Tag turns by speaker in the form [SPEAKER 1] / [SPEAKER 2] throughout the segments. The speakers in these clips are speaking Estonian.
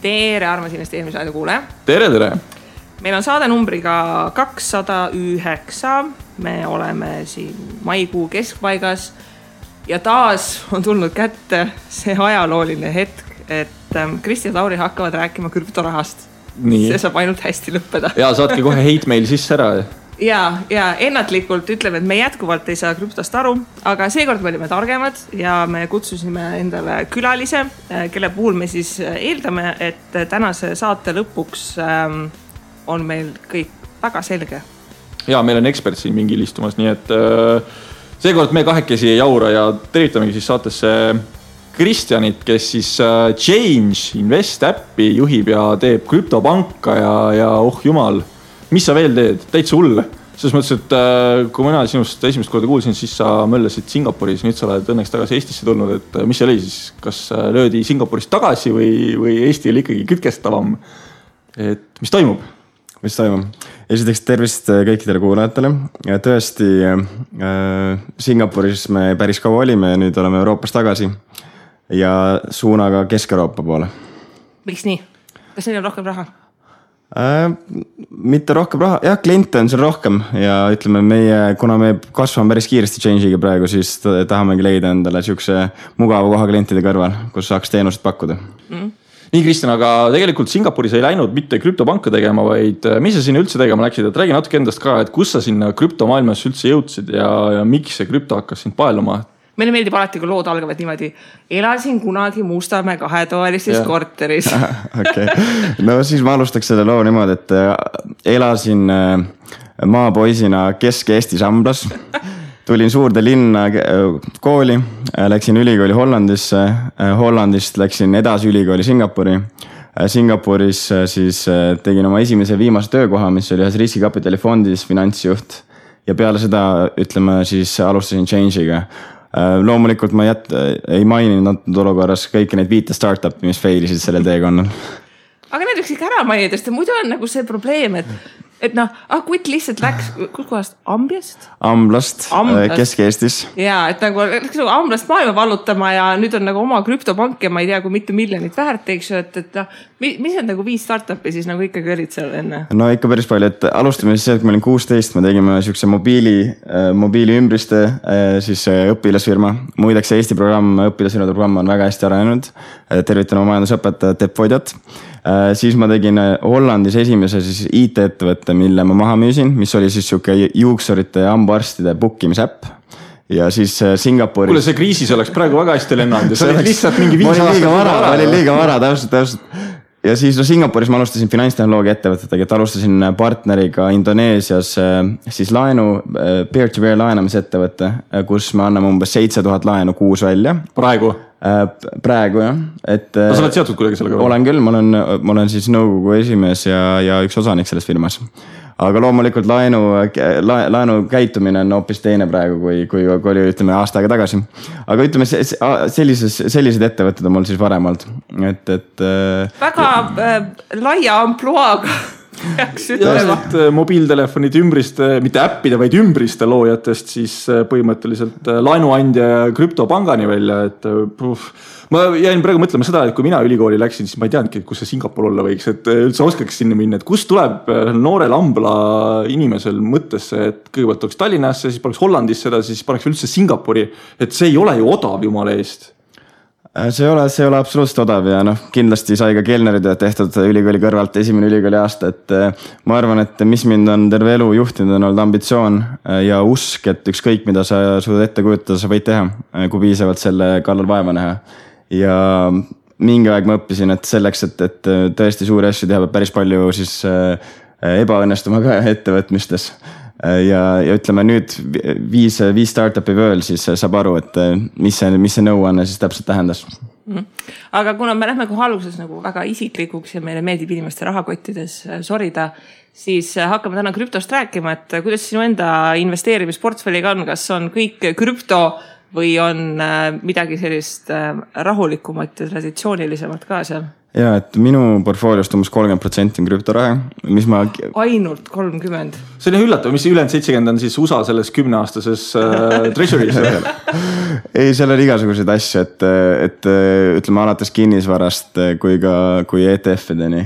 [SPEAKER 1] Tere, armas investeerimisradio kuule.
[SPEAKER 2] Tere!
[SPEAKER 1] Meil on saade numbriga 209. Me oleme siin maikuu keskpaigas ja taas on tulnud kätte see ajalooline hetk, et Kristi ja Lauri hakkavad rääkima krüptorahast.
[SPEAKER 2] Nii.
[SPEAKER 1] See saab ainult hästi lõppeda.
[SPEAKER 2] Ja saatke kohe hate meil sisse ära.
[SPEAKER 1] Ja ennatlikult ütleme, et me jätkuvalt ei saa krüptost aru, aga seekord me olime targemad ja me kutsusime endale külalise, kelle puhul me siis eeldame, et tänase saate lõpuks on meil kõik väga selge.
[SPEAKER 2] Ja meil on ekspert siin mingil istumas, nii et seekord me kahekesi ei jaura ja tervitamegi siis saatesse Kristjanit, kes siis Change Invest äppi juhib ja teeb krüptopanka ja oh jumal, mis sa veel teed? Täitsa hull. Selles mõttes, et kui mina sinust esimest korda kuulsin, siis sa möllesid Singapuris, nüüd sa oled õnneks tagasi Eestisse tulnud, et mis see oli siis? Kas löödi Singapurist tagasi või Eesti oli ikkagi kütkestavam? Et mis toimub?
[SPEAKER 3] Mis toimub? Esiteks tervist kõikidele kuulajatele. Tõesti, Singapuris me päris kaua olime ja nüüd oleme Euroopas tagasi ja suunaga Kesk-Euroopa poole.
[SPEAKER 1] Miks nii? Kas neil on rohkem raha?
[SPEAKER 3] Mitte rohkem raha, jah, kliente on seal rohkem ja ütleme kuna me kasvame päris kiiresti Change'iga praegu, siis tahamegi leida endale siukse mugava koha klientide kõrval, kus saaks teenust pakkuda.
[SPEAKER 2] Nii, Kristjan, aga tegelikult Singapuris ei läinud mitte krüptopanka tegema, vaid mis sa sinna üldse tegema läksid? Et räägi natuke endast ka, et kus sa sinna krüptomaailmas üldse jõudsid ja miks see krüpto hakkas sind paeluma?
[SPEAKER 1] Meile meeldib alati, kui lood algavad niimoodi. Elasin kunagi Mustamäe 2-toalistes korteris.
[SPEAKER 3] Okay. No siis ma alustaks selle loo niimoodi, et elasin maapoisina Kesk-Eestis Amblas. Tulin suurde linna kooli, läksin ülikooli Hollandisse, Hollandist läksin edasi ülikooli Singapuri. Singapuris siis tegin oma esimese viimase töökoha, mis oli ühes riskikapitali fondis finantsjuht ja peale seda, ütleme, siis alustasin Change'iga. Loomulikult ma ei maininud olukorras kõiki neid 5 startupi, mis failisid sellel teekonnal.
[SPEAKER 1] Aga need võiks ikka ära mainida, sest muidu on nagu see probleem, et Kutt lihtsalt läks, kus kohast? Amblast,
[SPEAKER 3] Kesk-Eestis.
[SPEAKER 1] Ja, et nagu läks Amblast maailma vallutama ja nüüd on nagu oma krüptopank ja ma ei tea, kui mitu miljonit väärt, eks ju, et mis on nagu 5 startupi siis nagu ikkagi olid seal enne?
[SPEAKER 3] No ikka päris palju, et alustame siis see, et kui ma olin 16, me tegime siukse mobiili ümbriste siis õpilasfirma. Muideks Eesti õpilasfirmade programm on väga hästi arenenud. Tervitan oma majandusõpetajat Tepp Vodjat. Siis ma tegin Hollandis esimese siis IT-ettevõtte, mille ma maha müüsin, mis oli siis siuke juuksurite ja hambaarstide bookimisäpp. Ja siis Singapuris...
[SPEAKER 2] Kuule, see kriisis oleks praegu väga hästi lennanud ja see oli lihtsalt mingi 5 aastat.
[SPEAKER 3] Ma olin liiga vara, täpselt. Ja siis Singapuris ma alustasin finantstehnoloogia ettevõtetega, et alustasin partneriga Indoneesias siis peer-to-peer laenamisettevõtte, kus me anname umbes 7000 laenu kuus välja. Praegu jah.
[SPEAKER 2] No sa oled seotud kuidagi sellega?
[SPEAKER 3] Olen küll, ma olen siis nõukogu esimees ja üks osanik selles firmas. Aga loomulikult laenu käitumine on hoopis teine praegu, kui oli ütleme aasta aega tagasi. Aga ütleme, sellised ettevõtted on mul siis varem olnud.
[SPEAKER 1] Väga laia ampluaaga.
[SPEAKER 2] Mobiiltelefonide ümbriste, mitte äppide, vaid ümbriste loojatest siis põhimõtteliselt laenuandja ja krüptopangani välja, et ma jäin praegu mõtlema seda, et kui mina ülikooli läksin, siis ma ei teadnudki, kus see Singapur olla võiks, et üldse oskaks sinna minna, et kust tuleb noorel Ambla inimesel mõttesse, et kõigepealt oleks Tallinnasse, siis paneks Hollandisse seda, siis paneks üldse Singapuri, et see ei ole ju odav jumala eest.
[SPEAKER 3] See ei ole absoluutselt odav ja kindlasti sai ka Kelnerid tehtud ülikooli kõrvalt esimene ülikooli aasta, et ma arvan, et mis mind on terve elu juhtinud on olnud ambitsioon ja usk, et ükskõik mida sa suudad ette kujutada, sa võid teha, kui piisavalt selle kallal vaeva näha. Ja mingi aeg ma õppisin, et selleks, et tõesti suuri asju teha, päris palju siis ebaõnnestuma ka ettevõtmistes. Ja ütleme nüüd 5 startupi veel, siis saab aru, et mis see nõuanne siis täpselt tähendas.
[SPEAKER 1] Aga kuna me lähme kohe alguses nagu väga isiklikuks ja meile meeldib inimeste rahakottides sorida, siis hakkame täna krüptost rääkima, et kuidas sinu enda investeerimisportfelliga on, kas on kõik krüpto või on midagi sellist rahulikumat ja traditsioonilisemat ka seal?
[SPEAKER 3] Ja, et minu portfooliost umbes 30% on krüptoraha, mis ma...
[SPEAKER 1] Ainult 30%?
[SPEAKER 2] See on üllatav, mis ülejäänud 70 on siis USA selles 10-aastases treasury's?
[SPEAKER 3] Ei, seal on igasuguseid asju, et ütleme alates kinnisvarast kui ETF-ideni.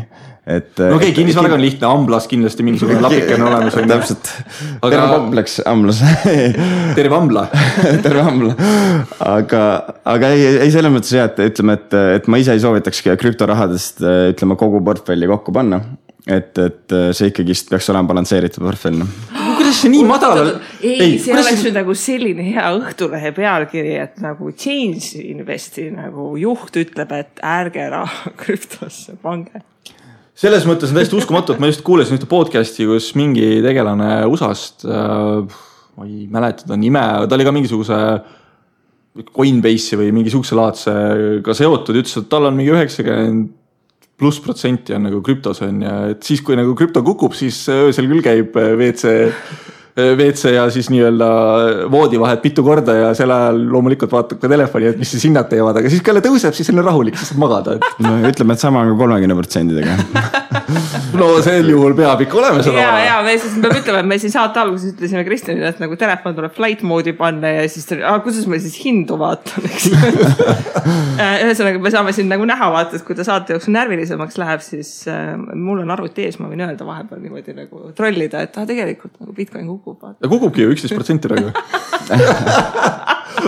[SPEAKER 2] No okei, kinnisvaraga on lihtne, Amblas kindlasti mingisugune lapike on olemas.
[SPEAKER 3] Täpselt, terve kompleks Amblas.
[SPEAKER 2] Terve Ambla.
[SPEAKER 3] Terve Ambla. Aga ei selles mõttes jah, et ütleme, et ma ise ei soovitaks krüptorahadest ütleme kogu portfelli kokku panna. Et see ikkagist peaks olema balansseeritud portfell.
[SPEAKER 2] Kuidas see nii madal?
[SPEAKER 1] Ei, see oleks nüüd nagu selline hea Õhtulehe pealkiri, et nagu Change Investi nagu juht ütleb, et ärge raha krüptosse pange.
[SPEAKER 2] Selles mõttes on täiesti uskumatu, et ma just kuulesin ühte podcasti, kus mingi tegelane USA-st, ma ei mäleta ta nime, ta oli ka mingisuguse Coinbase'i või mingisuguse laadsega seotud, ütles, et tal on mingi 90+% on nagu krüptos on ja et siis, kui nagu krüpto kukub, siis öösel küll käib WC ja siis nii-öelda voodi vahet mitu korda ja sel ajal loomulikult vaatab ka telefoni, et mis siis hinnad teevad, aga siis kui jälle tõuseb, siis on rahulik, siis saab magada.
[SPEAKER 3] No ütleme, et sama on ka 30%-dega.
[SPEAKER 2] No sel juhul peab ikka olema seda vara.
[SPEAKER 1] Ja me siis peab ütlema, et me siin saate alguses ütlesime Kristjanile, et nagu telefon tuleb flight moodi panna ja siis kuidas me siis hindu vaatan, eks? Ühesõnaga, me saame siin nagu näha vaatad, kui ta saate jooksul närvilisemaks läheb, siis mul on arvuti ees, ma võin öelda vahepeal niimoodi nagu trollida, et tegelikult nagu Bitcoin kukub.
[SPEAKER 2] Ja kukubki ju 11% praegu.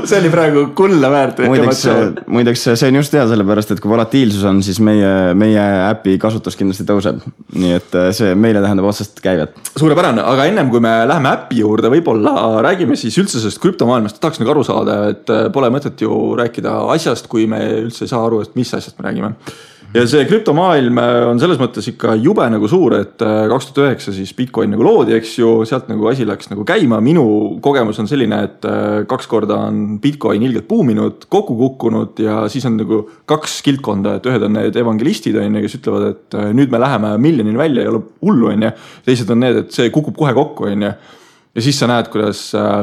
[SPEAKER 2] See oli praegu kulla väärt.
[SPEAKER 3] Muideks see on just hea sellepärast, et kui volatiilsus on, siis meie äpi kasutus kindlasti tõuseb. Nii et see meile tähendab otsest käivet.
[SPEAKER 2] Suurepärane, aga ennem kui me läheme äpi juurde, võib-olla räägime siis üldse sellest krüptomaailmast. Tahaks nagu aru saada, et pole mõtet ju rääkida asjast, kui me üldse ei saa aru, et mis asjast me räägime. Ja see krüptomaailm on selles mõttes ikka jube nagu suur, et 2009 siis Bitcoin nagu loodi, eks ju, sealt nagu asi läks nagu käima. Minu kogemus on selline, et 2 korda on Bitcoin ilgelt buuminud, kokku kukkunud ja siis on nagu 2 kildkonda, et ühed on need evangelistid, kes ütlevad, et nüüd me läheme miljonini välja, ei ole hullu, teised on need, et see kukub kohe kokku, ja siis sa näed, kuidas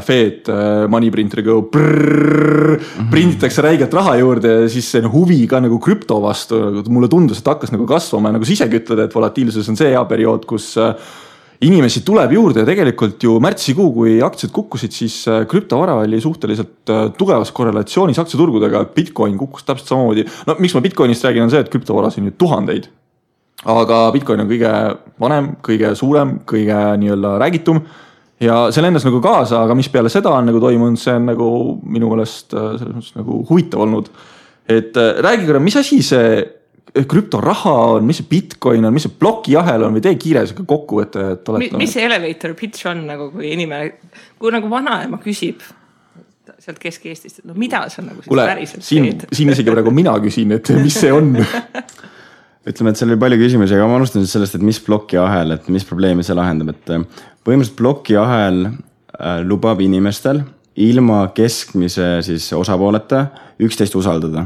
[SPEAKER 2] Fed moneyprinteriga prinditakse räigelt raha juurde ja siis see huvi ka nagu krüpto vastu. Mulle tundus, et hakkas nagu kasvama ja nagu sa isegi ütled, et volatiilsus on see hea periood, kus inimesi tuleb juurde ja tegelikult ju märtsikuu, kui aktsiad kukkusid, siis krüptovara oli suhteliselt tugevas korrelatsioonis aktsiaturgudega. Bitcoin kukkus täpselt samamoodi. No miks ma Bitcoinist räägin on see, et krüptovaras on ju tuhandeid. Aga Bitcoin on kõige vanem, kõige suurem, kõige nii-öelda räägitum. Ja see lendas nagu kaasa, aga mis peale seda on nagu toimunud, see on nagu minu meelest selles mõttes nagu huvitav olnud. Et räägi korra, mis asi see krüptoraha on, mis see Bitcoin on, mis see blokijahel on või tee kiires kokkuvõte, et oled...
[SPEAKER 1] Mis see elevator pitch on nagu, kui inimene, kui nagu vanaema küsib sealt Kesk-Eestist, et no mida see on nagu siis päriselt teed?
[SPEAKER 2] Siin isegi praegu mina küsin, et mis see on?
[SPEAKER 3] Ütleme, et seal oli palju küsimusi, aga ma alustan sellest, et mis blokijahel, et mis probleemi see lahendab, et põhimõtteliselt blokijahel lubab inimestel ilma keskmise siis osapooleta üksteist usaldada.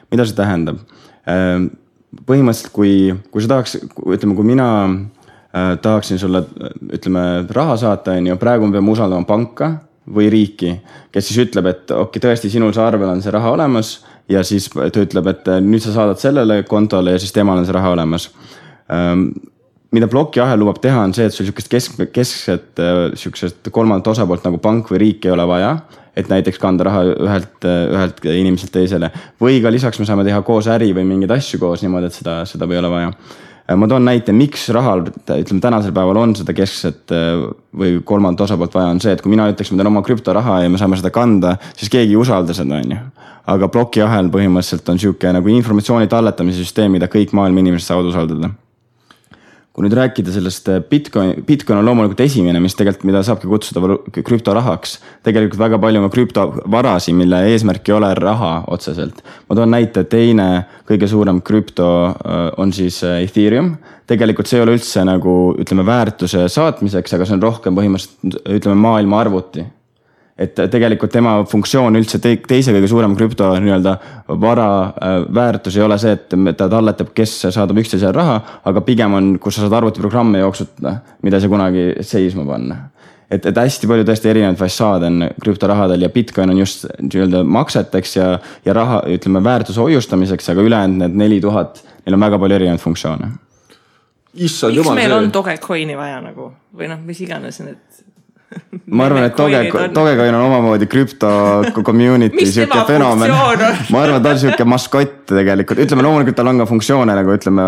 [SPEAKER 3] Mida see tähendab? Põhimõtteliselt, kui sa tahaks, ütleme, kui mina tahaksin sulle, ütleme, raha saata, praegu me peame usaldama panka või riiki, kes siis ütleb, et okei, tõesti sinul see arvel on see raha olemas ja siis ta ütleb, et nüüd sa saadad sellele kontole ja siis temal on see raha olemas. Mida blokiahel lubab teha on see, et sul keskset kolmandat osapoolt nagu pank või riik ei ole vaja, et näiteks kanda raha ühelt inimeselt teisele. Või ka lisaks me saame teha koos äri või mingeid asju koos niimoodi, et seda ei ole vaja. Ma toon näite, miks rahal, ütleme tänasel päeval on seda keskset või kolmandat osapoolt vaja on see, et kui mina ütleks, ma teen oma krüptoraha ja me saame seda kanda, siis keegi ei usalda seda, on ju. Aga blokiahel põhimõtteliselt on siuke nagu informatsiooni talletamise süsteem, mida kõik maailma inimesed saavad usaldada. Kui nüüd rääkida sellest Bitcoin on loomulikult esimene, mis tegelikult, mida saabki kutsuda krüptorahaks. Tegelikult väga palju on krüptovarasi, mille eesmärk ei ole raha otseselt. Ma toon näite, teine kõige suurem krüpto on siis Ethereum. Tegelikult see ei ole üldse nagu, ütleme, väärtuse saatmiseks, aga see on rohkem põhimõtteliselt, ütleme, maailma arvuti. Et tegelikult tema funktsioon üldse teise kõige suurem krüpto nii-öelda vara väärtus ei ole see, et ta talletab, kes saadab üksteisele raha, aga pigem on, kus sa saad arvutiprogramme jooksutada, mida sa kunagi seisma panna. et hästi palju tõesti erinevaid fassaade on krüptorahadel ja Bitcoin on just nii-öelda makseteks ja raha, ütleme, väärtuse hoiustamiseks, aga ülejäänud need 4000, neil on väga palju erinevaid funktsioone.
[SPEAKER 1] Miks meil on Dogecoini vaja nagu või noh, mis iganes need
[SPEAKER 3] ma arvan, et Dogecoin on omamoodi krüpto community siuke fenomen. Ma arvan, et ta on siuke maskott tegelikult. Ütleme, loomulikult tal on ka funktsioone nagu ütleme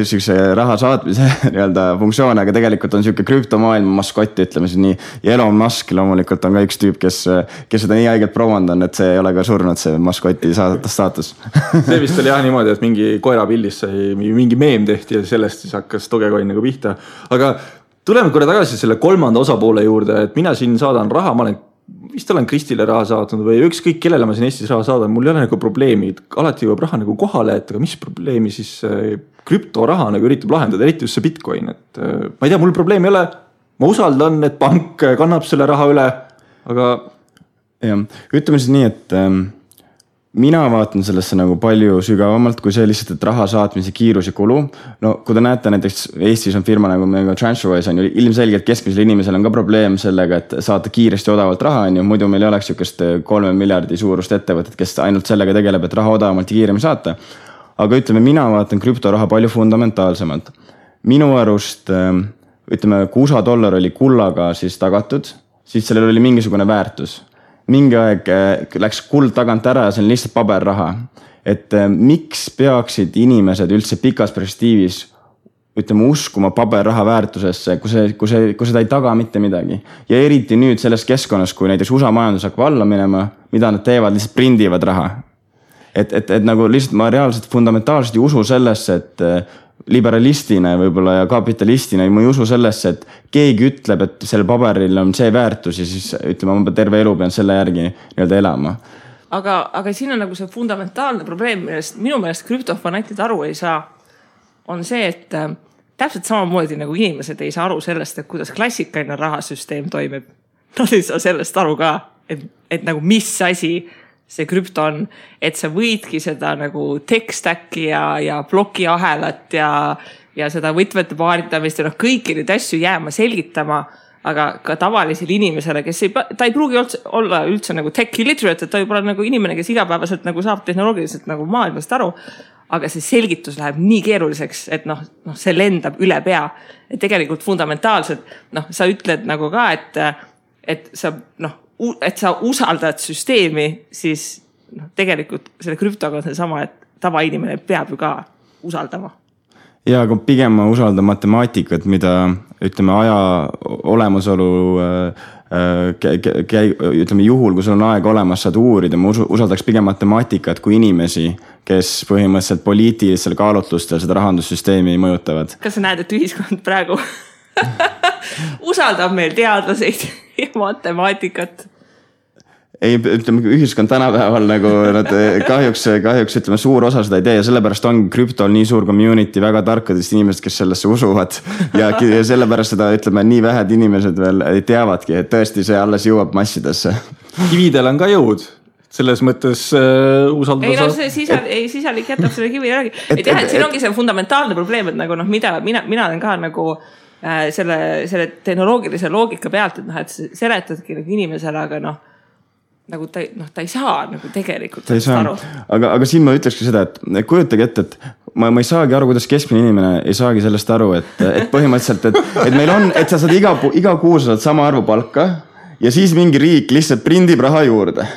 [SPEAKER 3] siukse raha saatmise nii-öelda funktsioone, aga tegelikult on siuke krüptomaailma maskott, ütleme siis nii. Ja Elon Musk loomulikult on ka üks tüüp, kes seda nii haigelt promond on, et see ei ole ka surnud see maskoti staatus.
[SPEAKER 2] See vist oli jah niimoodi, et mingi koerapillis sai mingi meem tehti ja sellest siis hakkas Dogecoin nagu pihta. Aga tuleme korra tagasi selle kolmanda osapoole juurde, et mina siin saadan raha, ma olen Kristile raha saatnud või ükskõik kellele ma siin Eestis raha saadan, mul ei ole nagu probleemi, alati jõuab raha nagu kohale, et aga mis probleemi siis krüptoraha nagu üritab lahendada, eriti just see Bitcoin, et ma ei tea, mul probleemi ei ole, ma usaldan, et pank kannab selle raha üle, aga...
[SPEAKER 3] Ja, ütleme siis nii, et mina vaatan sellesse nagu palju sügavamalt, kui see lihtsalt, et raha saatmise kiirus ja kulu. No kui te näete, näiteks Eestis on firma nagu TransferWise on ju ilmselgelt keskmisel inimesel on ka probleem sellega, et saata kiiresti odavalt raha on ju, muidu meil ei oleks sükest 3 miljardi suurust ettevõtet, kes ainult sellega tegeleb, et raha odavamalt ja kiiremi saata. Aga ütleme, mina vaatan krüptoraha palju fundamentaalsemalt. Minu arust, ütleme, kui USA dollar oli kullaga siis tagatud, siis sellel oli mingisugune väärtus. Mingi aeg läks kuld tagant ära ja see on lihtsalt paberraha. Et miks peaksid inimesed üldse pikas perspektiivis ütleme uskuma paberraha väärtusesse, kui seda ei taga mitte midagi. Ja eriti nüüd selles keskkonnas, kui näiteks USA majandus hakkab alla minema, mida nad teevad, lihtsalt prindivad raha. Et nagu lihtsalt ma reaalselt fundamentaalselt ei usu sellesse, et liberalistina võib-olla ja kapitalistina ma ei usu sellesse, et keegi ütleb, et sellel paberil on see väärtus ja siis ütleme, ma terve elu pean selle järgi nii-öelda elama.
[SPEAKER 1] Aga siin on nagu see fundamentaalne probleem, millest minu meelest krüptofanatid aru ei saa, on see, et täpselt samamoodi nagu inimesed ei saa aru sellest, et kuidas klassikaline rahasüsteem toimib. Nad ei saa sellest aru ka, et nagu mis asi see krüpto on, et sa võidki seda nagu tech-stacki ja blokiahelat ja seda võtmete paaritamist ja kõiki neid asju jääma selgitama, aga ka tavalisele inimesele, kes ta ei pruugi olla üldse nagu tech illiterate, et ta võib olla nagu inimene, kes igapäevaselt nagu saab tehnoloogiliselt nagu maailmast aru, aga see selgitus läheb nii keeruliseks, et see lendab üle pea. Et tegelikult fundamentaalselt, sa ütled nagu ka, et sa usaldad süsteemi, siis tegelikult selle krüptoga on see sama, et tavainimene peab ju ka usaldama.
[SPEAKER 3] Ja, aga pigem ma usaldan matemaatikat, mida ütleme aja olemasolu ütleme juhul, kui sul on aeg olemas, saad uurida, ma usaldaks pigem matemaatikat kui inimesi, kes põhimõtteliselt poliitilisel kaalutlustel seda rahandussüsteemi mõjutavad.
[SPEAKER 1] Kas sa näed, et ühiskond praegu usaldab meil teadlaseid ja matemaatikat?
[SPEAKER 3] Ei, ütleme, ühiskond tänapäeval nagu nad kahjuks ütleme suur osa seda ei tee ja sellepärast on krüptol nii suur community väga tarkadest inimesed, kes sellesse usuvad ja sellepärast seda ütleme nii vähed inimesed veel teavadki, et tõesti see alles jõuab massidesse.
[SPEAKER 2] Kividel on ka jõud. Selles mõttes usaldada...
[SPEAKER 1] Ei, see sisalik jätab selle kivi järgi. Et siin ongi see fundamentaalne probleem, et nagu mida mina olen ka nagu selle tehnoloogilise loogika pealt, et seletadki inimesele, aga nagu ta ei saa nagu tegelikult aru.
[SPEAKER 3] Aga siin ma ütlekski seda, et kujutage ette, et ma ei saagi aru, kuidas keskmine inimene ei saagi sellest aru, et põhimõtteliselt, et meil on, et sa saad iga kuu saad sama arvu palka ja siis mingi riik lihtsalt prindib raha juurde.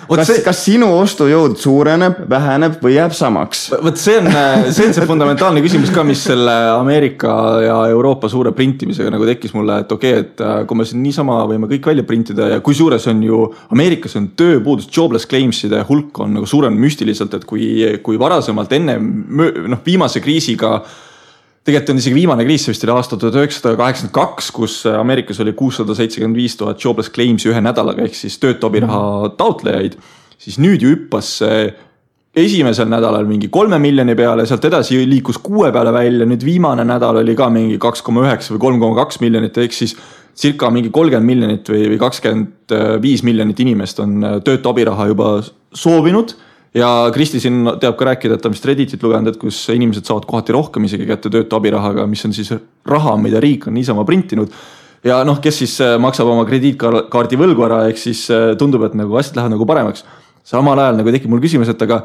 [SPEAKER 3] Kas sinu ostujõud suureneb, väheneb või jääb samaks?
[SPEAKER 2] Võt see on see fundamentaalne küsimus ka, mis selle Ameerika ja Euroopa suure printimisega nagu tekkis mulle, et okei, et kui me siin niisama võime kõik välja printida ja kui suures on ju Ameerikas on tööpuudus, jobless claimside hulk on nagu suurem müstiliselt, et kui varasemalt enne viimase kriisiga tegelikult on isegi viimane kriis, see vist oli aasta 1982, kus Ameerikas oli 675 000 jobless claimsi ühe nädalaga, ehk siis töötu abiraha taotlejaid, siis nüüd ju hüppas esimesel nädalal mingi 3 miljoni peale, sealt edasi liikus 6 peale välja, nüüd viimane nädal oli ka mingi 2,9 või 3,2 miljonit, ehk siis circa mingi 30 miljonit või 25 miljonit inimest on töötu abiraha juba soovinud. Ja Kristi siin teab ka rääkida, et ta vist Redditit lugenud, et kus inimesed saavad kohati rohkem isegi kätte töötu abirahaga, mis on siis raha, mida riik on niisama printinud. ja noh, kes siis maksab oma krediitkaardi võlgu ära, ehk siis tundub, et nagu asjad lähevad nagu paremaks. Samal ajal nagu tekib mul küsimus, et aga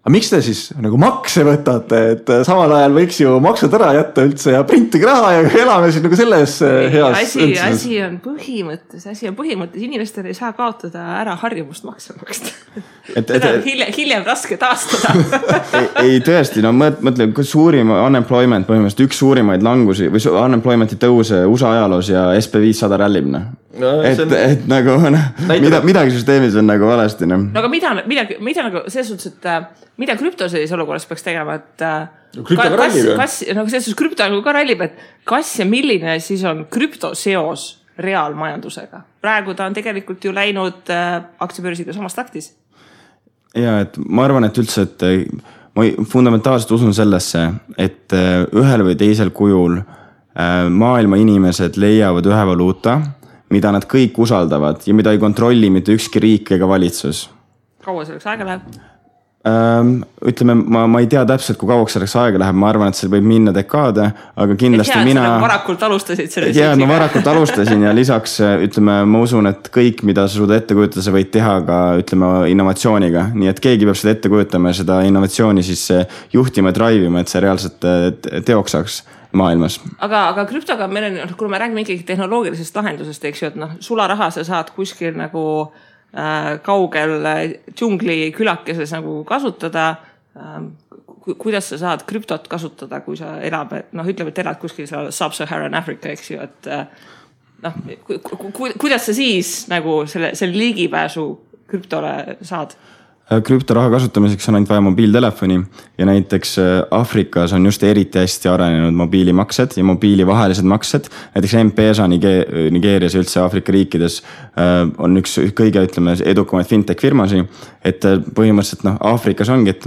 [SPEAKER 2] miks te siis nagu makse võtate, et samal ajal võiks ju maksud ära jätta üldse ja printige raha ja elame siis nagu selles heas
[SPEAKER 1] asi on põhimõttes, inimestel ei saa kaotada ära harjumust makse maksta. Hiljem raske taastada.
[SPEAKER 3] ei tõesti, no mõtle, suurim unemployment põhimõtteliselt üks suurimaid langusi või unemploymenti tõuse USA ajaloos ja SP500 rallib. No, et nagu midagi süsteemis on nagu valesti. No
[SPEAKER 1] aga mida nagu selles suhtes, et mida krüpto sellises olukorras peaks tegema, et selles krüpto ka rallib, et kas ja milline siis on krüpto seos reaalmajandusega? Praegu ta on tegelikult ju läinud aktsiabörsiga samas taktis.
[SPEAKER 3] Ja, et ma arvan, et üldse, et ma fundamentaalselt usun sellesse, et ühel või teisel kujul maailma inimesed leiavad ühe valuuta, mida nad kõik usaldavad ja mida ei kontrolli mitte ükski riik ega valitsus.
[SPEAKER 1] Kaua selleks aega läheb?
[SPEAKER 3] Ütleme, ma ei tea täpselt, kui kauaks selleks aega läheb, ma arvan, et see võib minna dekaade, aga kindlasti mina...
[SPEAKER 1] varakult alustasid selle
[SPEAKER 3] ma varakult alustasin ja lisaks, ütleme, ma usun, et kõik, mida sa suuda ette kujutada, sa võid teha ka, ütleme, innovatsiooniga. Nii et keegi peab seda ette kujutama ja seda innovatsiooni siis juhtima ja drivima, et see reaalselt teoks saaks maailmas.
[SPEAKER 1] Aga krüptoga meil on, kui me räägime ikkagi tehnoloogilisest lahendusest, eks ju, et sularaha sa saad kuskil nagu kaugel džungli külakeses nagu kasutada. Kuidas sa saad krüptot kasutada, kui sa elab, ütleme, et elad kuskil Sub-Saharan Africa, eks ju, et kuidas sa siis nagu selle ligipääsu krüptole saad?
[SPEAKER 3] Krüptoraha kasutamiseks on ainult vaja mobiiltelefoni ja näiteks Afrikas on just eriti hästi arenenud mobiilimaksed ja mobiilivahelised maksed. Näiteks M-Pesa Nigeerias ja üldse Afrika riikides on üks kõige, ütleme, edukamaid fintech firmasi, et põhimõtteliselt Afrikas ongi, et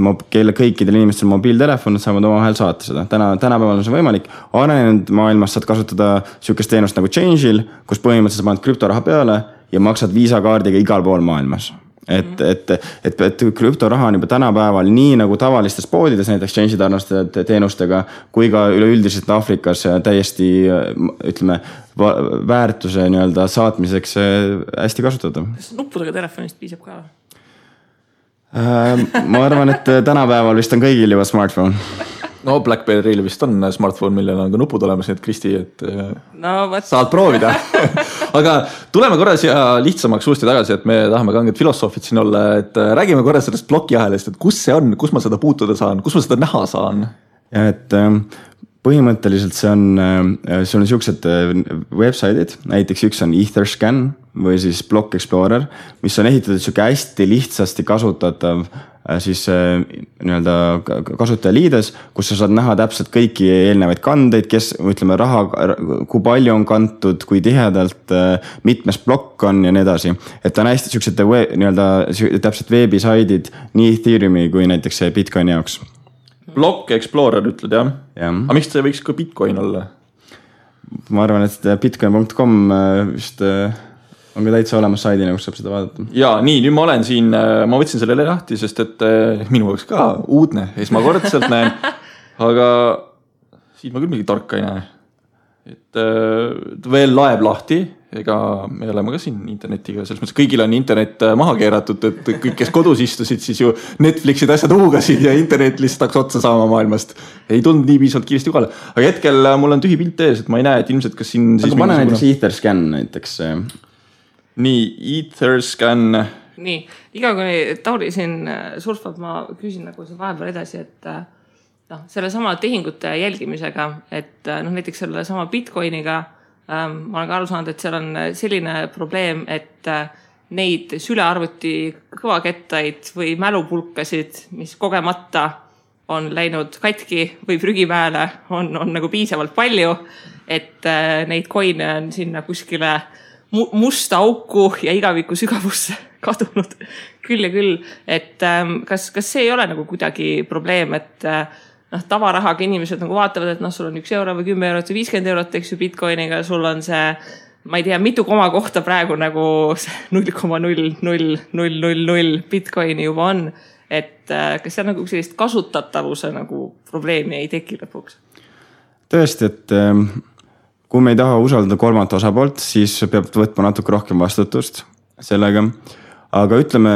[SPEAKER 3] kõikidel inimestel mobiiltelefon saavad omavahel saata seda. Tänapäeval on see võimalik. Arenenud maailmas saad kasutada sükest teenust nagu Change'il, kus põhimõtteliselt paned krüptoraha peale ja maksad viisakaardiga igal pool maailmas. Et krüptoraha on juba tänapäeval nii nagu tavalistes poodides, näiteks Change'i tarnaste teenustega, kui ka üleüldiselt Afrikas täiesti, ütleme, väärtuse nii-öelda saatmiseks hästi kasutada.
[SPEAKER 1] Kas nuppudega telefonist piisab ka?
[SPEAKER 3] Ma arvan, et tänapäeval vist on kõigil juba smartphone.
[SPEAKER 2] No BlackBerry'l vist on smartphone, millel on ka nupud olemas, nii et Kristi, et saad proovida. Aga tuleme korra siia lihtsamaks uuesti tagasi, et me tahame kanged filosoofid siin olla, et räägime korra sellest blokiahelist, et kus see on, kus ma seda puutuda saan, kus ma seda näha saan?
[SPEAKER 3] Ja, et põhimõtteliselt see on sellised webside'id, näiteks üks on Etherscan või siis Block Explorer, mis on ehitatud selline hästi lihtsasti kasutatav siis nii-öelda kasutajaliides, kus sa saad näha täpselt kõiki eelnevaid kandeid, kes, ütleme, raha, kui palju on kantud, kui tihedalt, mitmes blokk on ja nii edasi. Et ta on hästi sellised nii-öelda täpselt veebisaidid nii Ethereumi kui näiteks Bitcoini jaoks.
[SPEAKER 2] Block Explorer ütled, jah? Aga miks see võiks ka Bitcoin olla?
[SPEAKER 3] Ma arvan, et bitcoin.com vist on ka täitsa olemas saidina, kus saab seda vaadata.
[SPEAKER 2] Ja nii, nüüd ma olen siin, ma võtsin sellele lahti, sest et minu jaoks ka uudne, esmakordselt näen, aga siin ma küll mingi tarka ei näe. Et veel laeb lahti, ega me oleme ka siin internetiga, selles mõttes kõigil on internet maha keeratud, et kõik, kes kodus istusid, siis ju Netflixid asjad huugasid ja internet lihtsalt hakkas otsa saama maailmast. Ei tulnud nii piisavalt kiiresti kohale. Aga hetkel mul on tühi pilt ees, et ma ei näe, et ilmselt kas siin...
[SPEAKER 3] Aga pane näiteks Etherscan näiteks...
[SPEAKER 2] Nii, Etherscan.
[SPEAKER 1] Nii, iga kui Tauri siin surfab, ma küsin nagu see vahepeal edasi, et selle sama tehingute jälgimisega, et näiteks selle sama Bitcoiniga ma olen ka aru saanud, et seal on selline probleem, et neid sülearvuti kõvakettaid või mälupulkasid, mis kogemata on läinud katki või prügimäele, on nagu piisavalt palju, et neid coine on sinna kuskile musta auku ja igaviku sügavusse kadunud küll ja küll. Et kas see ei ole nagu kuidagi probleem, et tavarahaga inimesed nagu vaatavad, et sul on 1 euro või 10 eurot või 50 eurot, eks ju Bitcoiniga, sul on see, ma ei tea, mitu koma kohta praegu nagu 0,00000 Bitcoini juba on. Et kas see nagu sellist kasutatavuse nagu probleemi ei teki lõpuks?
[SPEAKER 3] Tõesti, et kui me ei taha usaldada kolmandat osapoolt, siis peab võtma natuke rohkem vastutust sellega. Aga ütleme,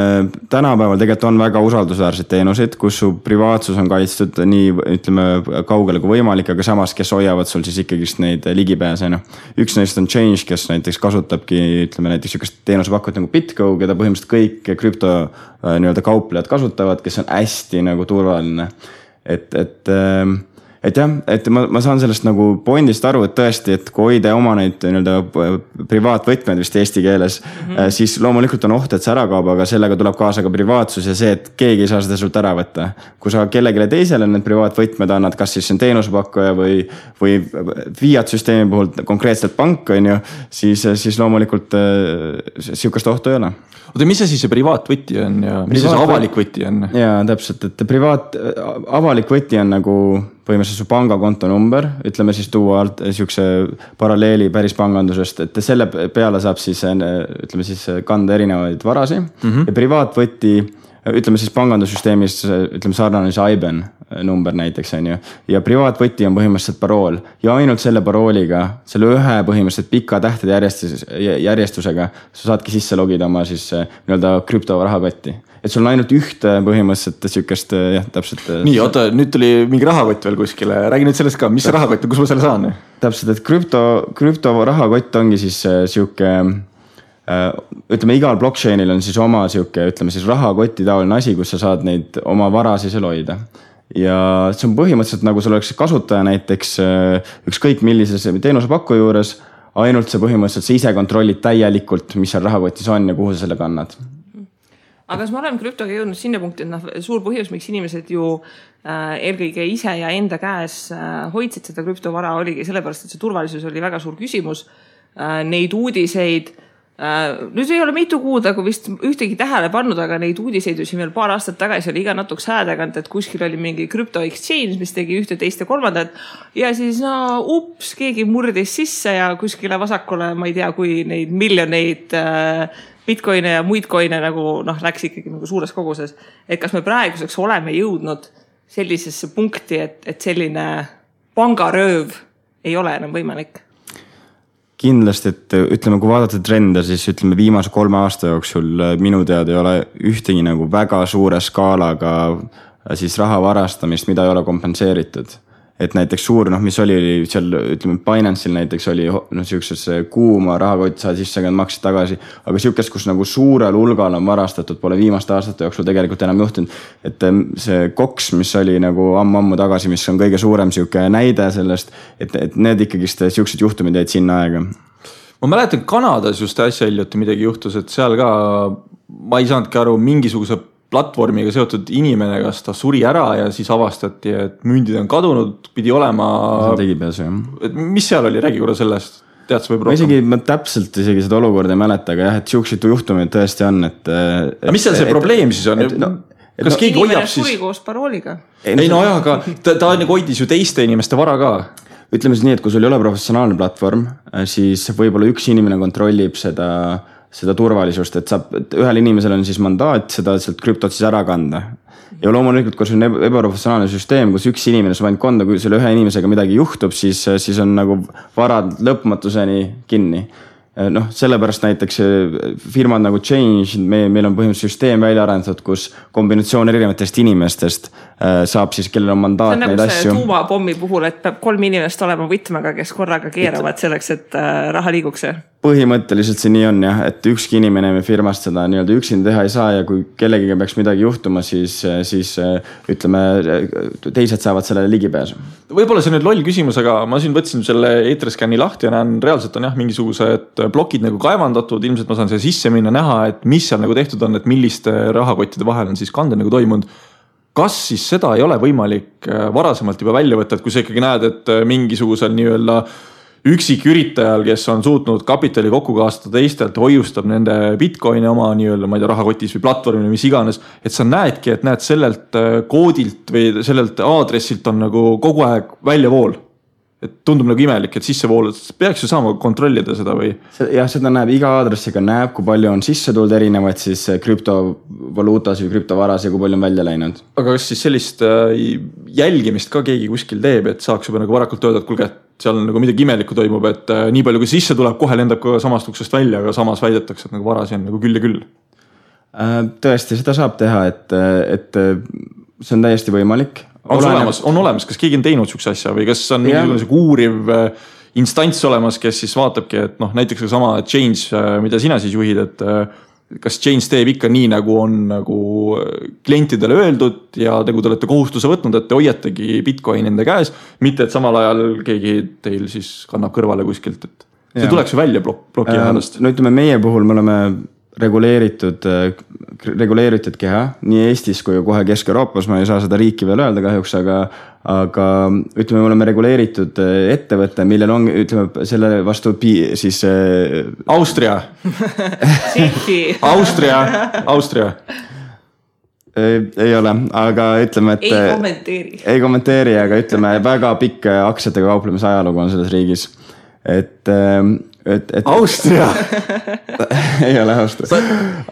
[SPEAKER 3] tänapäeval tegelikult on väga usaldusväärseid teenuseid, kus su privaatsus on kaitstud nii, ütleme, kaugele kui võimalik, aga samas, kes hoiavad sul siis ikkagist neid ligipääse. Üks neist on Change, kes näiteks kasutabki, ütleme näiteks sükest teenusepakkujat nagu BitGo, keda põhimõtteliselt kõik krüpto nii-öelda kauplejad kasutavad, kes on hästi nagu turvaline. Et jah, et ma saan sellest nagu pointist aru, et tõesti, et kui hoida oma neid privaatvõtmed vist eesti keeles, siis loomulikult on oht, et see ära kaob, aga sellega tuleb kaasa ka privaatsus ja see, et keegi ei saa seda sult ära võtta. Kui sa kellegile teisele need privaatvõtmed annad, kas siis see on teenusepakkuja või Fiat-süsteemi puhul konkreetselt pank on ju, siis loomulikult sihukest ohtu ei ole.
[SPEAKER 2] Oota, mis see siis see privaatvõti on ja mis see avalik võti on?
[SPEAKER 3] Jaa, täpselt, et avalik võti on nagu põhimõtteliselt su pangakonto number, ütleme siis tuua alt sihukese paralleeli päris pangandusest, et selle peale saab siis, ütleme siis kanda erinevaid varasi ja privaatvõti, ütleme siis pangandussüsteemis, ütleme sarnane see IBAN number näiteks on ju, ja privaatvõti on põhimõtteliselt parool ja ainult selle parooliga, selle ühe põhimõtteliselt pika tähtede järjestusega sa saadki sisse logida oma siis nii-öelda krüptorahakotti. Et sul on ainult ühte põhimõtteliselt sükest, jah, täpselt.
[SPEAKER 2] Nii, oota, nüüd tuli mingi rahakott veel kuskile. Räägi nüüd sellest ka, mis see rahakott on, kus ma selle saan?
[SPEAKER 3] Täpselt, et krüptorahakott ongi siis siuke, ütleme, igal blockchainil on siis oma siuke, ütleme siis rahakoti taoline asi, kus sa saad neid oma varasid seal hoida. Ja see on põhimõtteliselt nagu sul oleks kasutaja näiteks ükskõik millises teenusepakkuja juures, ainult see põhimõtteliselt sa ise kontrollid täielikult, mis seal rahakotis on ja kuhu sa selle kannad.
[SPEAKER 1] Aga kas me oleme krüptoga jõudnud sinna punkti, et suur põhjus, miks inimesed ju eelkõige ise ja enda käes hoidsid seda krüptovara oligi sellepärast, et see turvalisus oli väga suur küsimus. Neid uudiseid, nüüd ei ole mitu kuud, aga vist ühtegi tähele pannud, aga neid uudiseid ju siin veel paar aastat tagasi oli iga natuks häädegant, et kuskil oli mingi crypto exchange, mis tegi ühte, teist ja kolmandat ja siis keegi murdis sisse ja kuskile vasakule, ma ei tea, kui neid miljoneid bitcoine ja muid coine nagu läks ikkagi nagu suures koguses. Et kas me praeguseks oleme jõudnud sellisesse punkti, et selline pangarööv ei ole enam võimalik?
[SPEAKER 3] Kindlasti, et ütleme, kui vaadata trende, siis ütleme viimase 3 aasta jooksul minu teada ei ole ühtegi nagu väga suure skaalaga siis raha varastamist, mida ei ole kompenseeritud. Et näiteks suur, mis oli seal, ütleme, Binance'il näiteks oli siukses kuuma rahakott saad sisse, aga maksid tagasi, aga siukest, kus nagu suurel hulgal on varastatud, pole viimaste aastate jooksul tegelikult enam juhtunud, et see Cox, mis oli nagu ammu tagasi, mis on kõige suurem siuke näide sellest, et need ikkagist siuksed juhtumid jäid sinna aega.
[SPEAKER 2] Ma mäletan, Kanadas just äsja hiljuti midagi juhtus, et seal ka ma ei saanudki aru mingisuguse platvormiga seotud inimene, kas ta suri ära ja siis avastati, et mündid on kadunud, pidi olema...
[SPEAKER 3] Tegipääsu, jah.
[SPEAKER 2] Mis seal oli? Räägi korra sellest. Tead sa võib rohkem?
[SPEAKER 3] Ma täpselt isegi seda olukorda ei mäleta, aga jah, et siuksed juhtumid tõesti on, et
[SPEAKER 2] mis seal see probleem siis on? Kas keegi hoiab siis...
[SPEAKER 1] Suri koos parooliga?
[SPEAKER 2] Ei, aga ta hoidis ju teiste inimeste vara ka.
[SPEAKER 3] Ütleme siis nii, et kui sul ei ole professionaalne platvorm, siis võib-olla üks inimene kontrollib seda turvalisust, et ühel inimesel on siis mandaat seda sealt krüptot siis ära kanda. Ja loomulikult, kui see on ebaprofessionaalne süsteem, kus üks inimene saab ainult konda, kui selle ühe inimesega midagi juhtub, siis on nagu varad lõpmatuseni kinni. Sellepärast näiteks firmad nagu Change, meil on põhimõtteliselt süsteem välja arendatud, kus kombinatsioon erinevatest inimestest saab siis, kellel on mandaat neid asju.
[SPEAKER 1] See on nagu see tuumapommi puhul, et peab 3 inimest olema võtmega, kes korraga keeravad selleks, et raha liiguks.
[SPEAKER 3] Põhimõtteliselt see nii on jah, et ükski inimene me firmast seda nii-öelda üksin teha ei saa ja kui kellegiga peaks midagi juhtuma, siis ütleme, teised saavad sellele ligipääsu.
[SPEAKER 2] Võib-olla see nüüd loll küsimus, aga ma siin võtsin selle Etherscan'i lahti ja näen, reaalselt on jah mingisugused plokid nagu kaevandatud, ilmselt ma saan selle sisse minna näha, et mis seal nagu tehtud on, et milliste rahakottide vahel on siis kande nagu toimunud. Kas siis seda ei ole võimalik varasemalt juba välja võtta, et kui sa ikkagi näed, et mingisugusel nii-öelda üksik üritajal, kes on suutnud kapitali kokku kaastada teistelt, hoiustab nende bitcoini oma nii-öelda, ma ei tea, rahakotis või platvormil, mis iganes, et sa näedki, et näed sellelt koodilt või sellelt aadressilt on nagu kogu aeg väljavool. et tundub nagu imelik, et sissevoolud, peaks ju saama kontrollida seda või?
[SPEAKER 3] Jah, seda näeb iga aadressiga, näeb, kui palju on sisse tulnud erinevaid siis krüptovaluutas või krüptovaras ja kui palju on välja läinud.
[SPEAKER 2] Aga kas siis sellist jälgimist ka keegi kuskil teeb, et saaks juba nagu varakult öelda, et kulge, et seal nagu midagi imelikku toimub, et nii palju kui sisse tuleb, kohe lendab ka samast uksest välja, aga samas väidetakse, et nagu varasi on nagu küll ja küll.
[SPEAKER 3] Tõesti, seda saab teha, et see on täiesti võimalik.
[SPEAKER 2] On olemas, kas keegi on teinud sükse asja või kas on mingisugune uuriv instants olemas, kes siis vaatabki, et näiteks ka sama Change, mida sina siis juhid, et kas Change teeb ikka nii, nagu on nagu klientidele öeldud ja nagu te olete kohustuse võtnud, et te hoiategi Bitcoin enda käes, mitte et samal ajal keegi teil siis kannab kõrvale kuskilt, et see tuleks ju välja ploki ajast.
[SPEAKER 3] No ütleme, meie puhul me oleme reguleeritud keha nii Eestis kui kohe Kesk-Euroopas, ma ei saa seda riiki veel öelda kahjuks, aga ütleme, me oleme reguleeritud ettevõtte, millel on, ütleme, selle vastu siis
[SPEAKER 2] Austria. Austria.
[SPEAKER 3] Ei ole, aga ütleme, et ei kommenteeri, aga ütleme, väga pikk aktsiatega kauplemise ajalugu on selles riigis, et
[SPEAKER 2] Austria
[SPEAKER 3] ei ole Austria,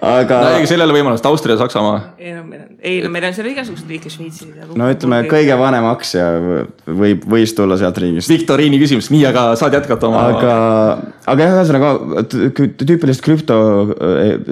[SPEAKER 3] aga
[SPEAKER 2] no ei sellele võimalust, Austria, Saksamaa
[SPEAKER 1] meil on seal igasugused riike, Šveitsi
[SPEAKER 3] no ütleme, kõige vanem aktsia võis tulla sealt riigist.
[SPEAKER 2] Viktoriini küsimus, nii, aga saad jätkata oma
[SPEAKER 3] aga ühesõnaga tüüpilist krüpto,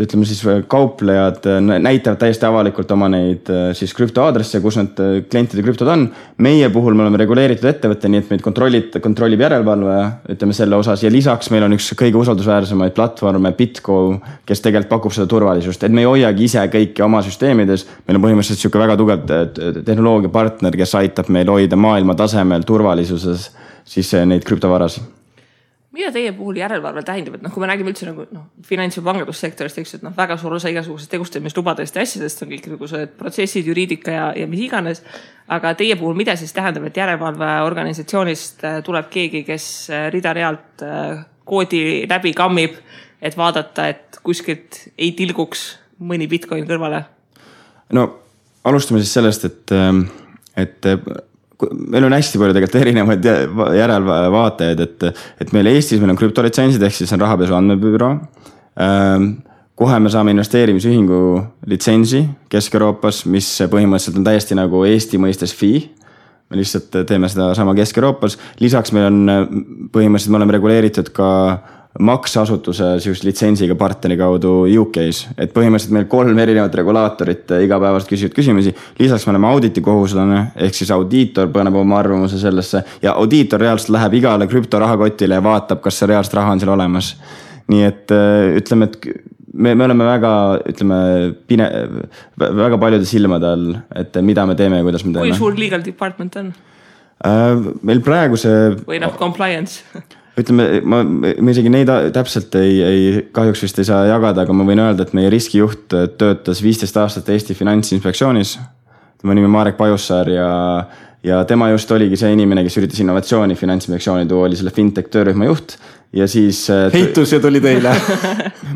[SPEAKER 3] ütleme siis kauplejad näitavad täiesti avalikult oma neid siis krüptoaadresse, kus need klientide krüptod on. Meie puhul me oleme reguleeritud ettevõtte, nii et meid kontrollib järelevalve, ütleme selle osas ja lisaks meil on üks kõige usaldusväärsemaid platvorme Bitco, kes tegelikult pakub seda turvalisust, et me ei hoiagi ise kõiki oma süsteemides. Meil on põhimõtteliselt selline väga tugev tehnoloogiapartner, kes aitab meil hoida maailma tasemel turvalisuses siis neid krüptovarasi.
[SPEAKER 1] Mida teie puhul järelevalve tähendab, et kui me räägime üldse nagu finants- ja pangandussektorist, et väga suur osa igasugusest tegustamislubadest ja asjadest on kõik niisugused protsessid, juriidika ja mis iganes, aga teie puhul mida siis tähendab, et järelevalveorganisatsioonist tuleb keegi, kes rida-realt koodi läbi kammib, et vaadata, et kuskilt ei tilguks mõni Bitcoin kõrvale? No
[SPEAKER 3] alustame siis sellest, et meil on hästi palju tegelikult erinevaid järelvaatajaid, et meil Eestis meil on krüptolitsentsid, ehk siis on rahapesu andmebüroo. Kohe me saame investeerimisühingu litsentsi Kesk-Euroopas, mis põhimõtteliselt on täiesti nagu Eesti mõistes fee. Me lihtsalt teeme seda sama Kesk-Euroopas. Lisaks meil on põhimõtteliselt, me oleme reguleeritud ka maksasutuse litsentsiga partneri kaudu UK-s, et põhimõtteliselt meil 3 erinevat regulaatorit igapäevast küsivad küsimusi. Lisaks me oleme auditikohuslane, ehk siis audiitor paneb oma arvamuse sellesse ja audiitor reaalselt läheb igale krüptorahakotile ja vaatab, kas see reaalselt raha on seal olemas. Nii et ütleme, et me oleme väga paljude silmade all, et mida me teeme ja kuidas me teeme.
[SPEAKER 1] Kui suur legal department on?
[SPEAKER 3] Meil praegu see
[SPEAKER 1] või compliance
[SPEAKER 3] ütleme, ma isegi neid täpselt kahjuks vist ei saa jagada, aga ma võin öelda, et meie riskijuht töötas 15 aastat Eesti Finantsinspektsioonis. Tema nimi Marek Pajussaar ja tema just oligi see inimene, kes üritas innovatsiooni Finantsinspektsiooni tuua, oli selle fintech töörühma juht ja siis
[SPEAKER 2] heitus ja tuli teile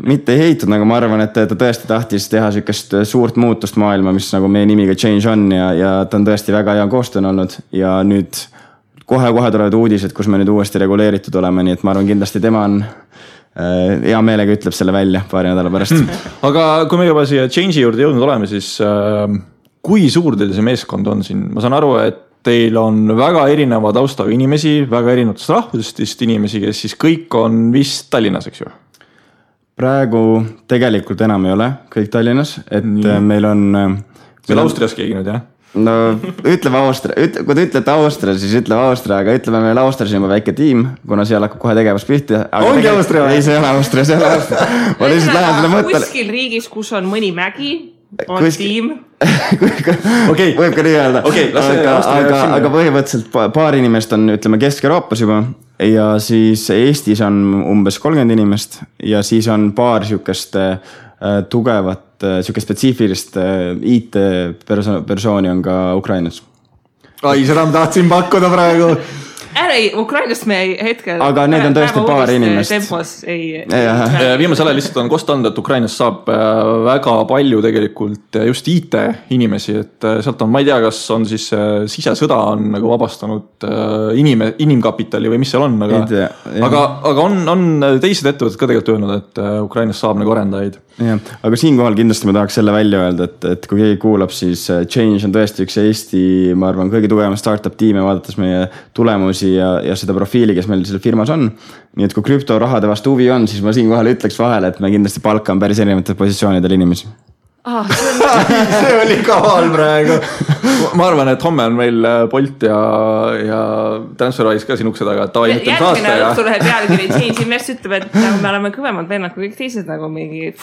[SPEAKER 3] mitte ei heitud, aga ma arvan, et ta tõesti tahtis teha sellist suurt muutust maailma, mis nagu meie nimiga Change on ja ta on tõesti väga hea koostöön olnud ja nüüd kohe tulevad uudised, kus me nüüd uuesti reguleeritud oleme, nii et ma arvan, kindlasti tema on hea meelega ütleb selle välja paari nädala pärast.
[SPEAKER 2] Aga kui me juba siia Change'i juurde jõudnud oleme, siis kui suur teil see meeskond on siin? Ma saan aru, et teil on väga erineva taustaga inimesi, väga erinevatest rahvusest inimesi, kes siis kõik on vist Tallinnas, eks ju?
[SPEAKER 3] Praegu tegelikult enam ei ole kõik Tallinnas, et meil on
[SPEAKER 2] meil Austrias keegi nüüd, jah?
[SPEAKER 3] No ütleme Austria, kui te ütlete Austria, siis ütleme Austria, aga ütleme meil Austrias on juba väike tiim, kuna seal hakkab kohe tegevus pihti.
[SPEAKER 2] Ongi Austria?
[SPEAKER 3] Ei, see ei ole Austria, see ei ole Austria. Ma lihtsalt lähen selle mõttele.
[SPEAKER 1] Kuskil riigis, kus on mõni mägi, on tiim.
[SPEAKER 3] Okei, võib ka nii öelda. Aga põhimõtteliselt paar inimest on, ütleme, Kesk-Euroopas juba ja siis Eestis on umbes 30 inimest ja siis on paar siukest tugevat, siuke spetsiifilist IT-persooni on ka Ukrainas.
[SPEAKER 2] Ai, seda ma tahtsin pakkuda praegu.
[SPEAKER 1] Ukrainast me hetkel.
[SPEAKER 3] Aga need on tõesti paar inimest.
[SPEAKER 1] Tempos ei.
[SPEAKER 2] Viimasel ajal lihtsalt on kost anda, et Ukrainas saab väga palju tegelikult just IT inimesi, et sealt on, ma ei tea, kas on siis sisesõda on nagu vabastanud inimkapitali või mis seal on, aga on teised ettevõtted ka tegelikult öelnud, et Ukrainas saab nagu arendajaid.
[SPEAKER 3] Ja, aga siinkohal kindlasti ma tahaks selle välja öelda, et kui keegi kuulab, siis Change on tõesti üks Eesti, ma arvan, kõige tugevama startup tiime, vaadates meie tulemusi ja seda profiili, kes meil selle firmas on. Nii et kui krüptorahade vastu huvi on, siis ma siinkohal ütleks vahele, et me kindlasti palkame päris erinevatel positsioonidel inimesi.
[SPEAKER 2] See oli kaval praegu. Ma arvan, et homme on meil Bolt ja TransferWise ka siin ukse taga.
[SPEAKER 1] Järgmine õhtu läheb pealkiri Change Invest ütleb, et nagu me oleme kõvemad vennad kui kõik teised nagu mingi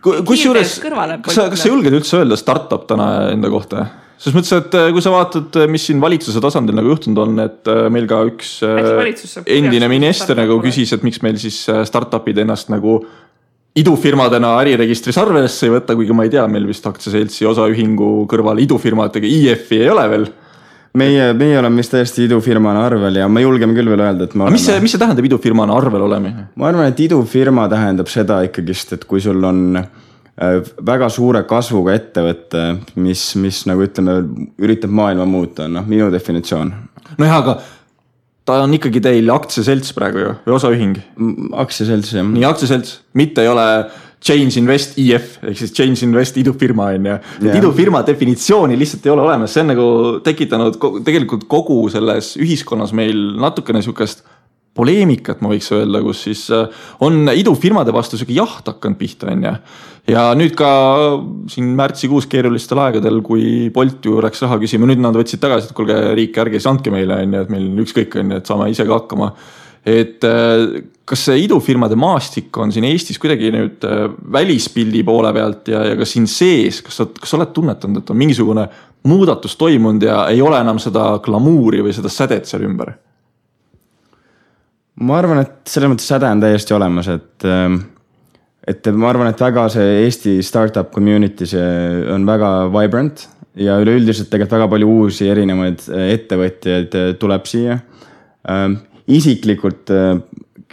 [SPEAKER 2] kusjuures, kas sa julged üldse öelda startup täna enda kohta? Selles mõttes, et kui sa vaatad, mis siin valitsuse tasandil nagu juhtunud on, et meil ka üks endine minister nagu küsis, et miks meil siis startupid ennast nagu idufirmadena äriregistris arvesse ei võtta, kuigi ma ei tea, meil vist aktsiaseltsi osaühingu kõrval idufirmadega IF-i ei ole veel.
[SPEAKER 3] Meie oleme vist täiesti idufirmana arvel ja ma julgeme küll veel öelda, et me oleme...
[SPEAKER 2] Mis see tähendab idufirmana arvel olema?
[SPEAKER 3] Ma arvan, et idufirma tähendab seda ikkagist, et kui sul on väga suure kasvuga ettevõtte, mis nagu ütleme, üritab maailma muuta, minu definitsioon.
[SPEAKER 2] No jah, aga ta on ikkagi teil aktsiaselts praegu ju, või osaühing?
[SPEAKER 3] Aktsiaselts, jah.
[SPEAKER 2] Nii, aktsiaselts, mitte ei ole Change Invest IF, ehk siis Change Invest idufirma on ja idufirma definitsiooni lihtsalt ei ole olemas. See on nagu tekitanud tegelikult kogu selles ühiskonnas meil natukene sükast poleemikat, ma võiks öelda, kus siis on idufirmade vastu süke jaht hakanud pihta on ja nüüd ka siin märtsikuus keerulistel aegadel, kui Bolt ju läks raha küsima, nüüd nad võtsid tagasi, et kuulge riik, ärge siis andke meile on ja et meil ükskõik on ja et saame ise ka hakkama. Et kas see idufirmade maastik on siin Eestis kuidagi nüüd välispildi poole pealt ja ka siin sees, kas oled tunnetanud, et on mingisugune muudatus toimunud ja ei ole enam seda glamuuri või seda sädet seal ümber?
[SPEAKER 3] Ma arvan, et selles mõttes säde on täiesti olemas, et ma arvan, et väga see Eesti startup community see on väga vibrant ja üleüldiselt tegelikult väga palju uusi erinevaid ettevõtjaid tuleb siia. Isiklikult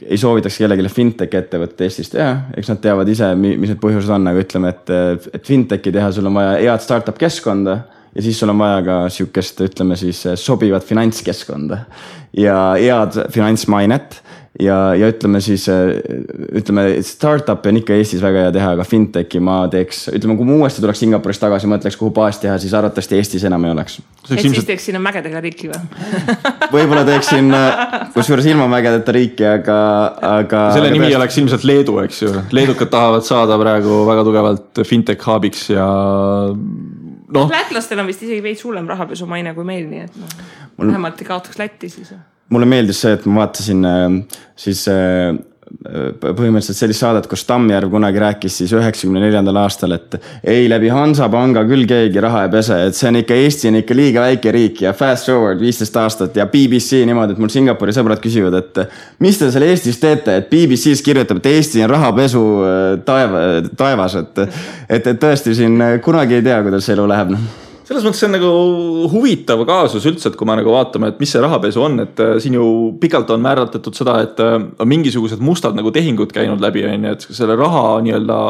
[SPEAKER 3] ei soovitaks kellegile fintech ettevõtte Eestis teha, eks nad teavad ise, mis need põhjused on, aga ütleme, et fintechi teha sul on vaja head startup keskkonda ja siis sul on vaja ka siukest, ütleme siis sobivat finantskeskkonda ja head finantsmainet ja ütleme siis, startup on ikka Eestis väga hea teha, aga fintechi ma teeks, ütleme, kui ma uuesti tuleks Singapurist tagasi, mõtleks, kuhu baas teha, siis arvatavasti Eestis enam ei oleks.
[SPEAKER 1] Et siis teeks sinna mägedega riiki või?
[SPEAKER 3] Võib-olla teeksin, kusjuures ilma mägedeta riiki, aga
[SPEAKER 2] selle nimi oleks ilmselt Leedu, eks ju. Leedukad tahavad saada praegu väga tugevalt fintech hubiks ja
[SPEAKER 1] Lätlastel on vist isegi veits hullem rahapesu maine kui meil, nii et vähemalt ei kaotaks Lätti siis.
[SPEAKER 3] Mulle meeldis see, et ma vaatasin siis põhimõtteliselt sellist saadet, kus Tammjärv kunagi rääkis siis 94. aastal, et ei läbi Hansapanga küll keegi raha ei pese, et see on ikka Eesti on ikka liiga väike riik ja fast forward 15 aastat ja BBC niimoodi, et mul Singapuri sõbrad küsivad, et mis te seal Eestis teete, et BBC's kirjutab, et Eesti on rahapesu taevas, et tõesti siin kunagi ei tea, kuidas see elu läheb.
[SPEAKER 2] Selles mõttes see on nagu huvitav kaasus üldse, et kui me nagu vaatame, et mis see rahapesu on, et siin ju pikalt on määratletud seda, et on mingisugused mustad nagu tehingud käinud läbi, et selle raha nii-öelda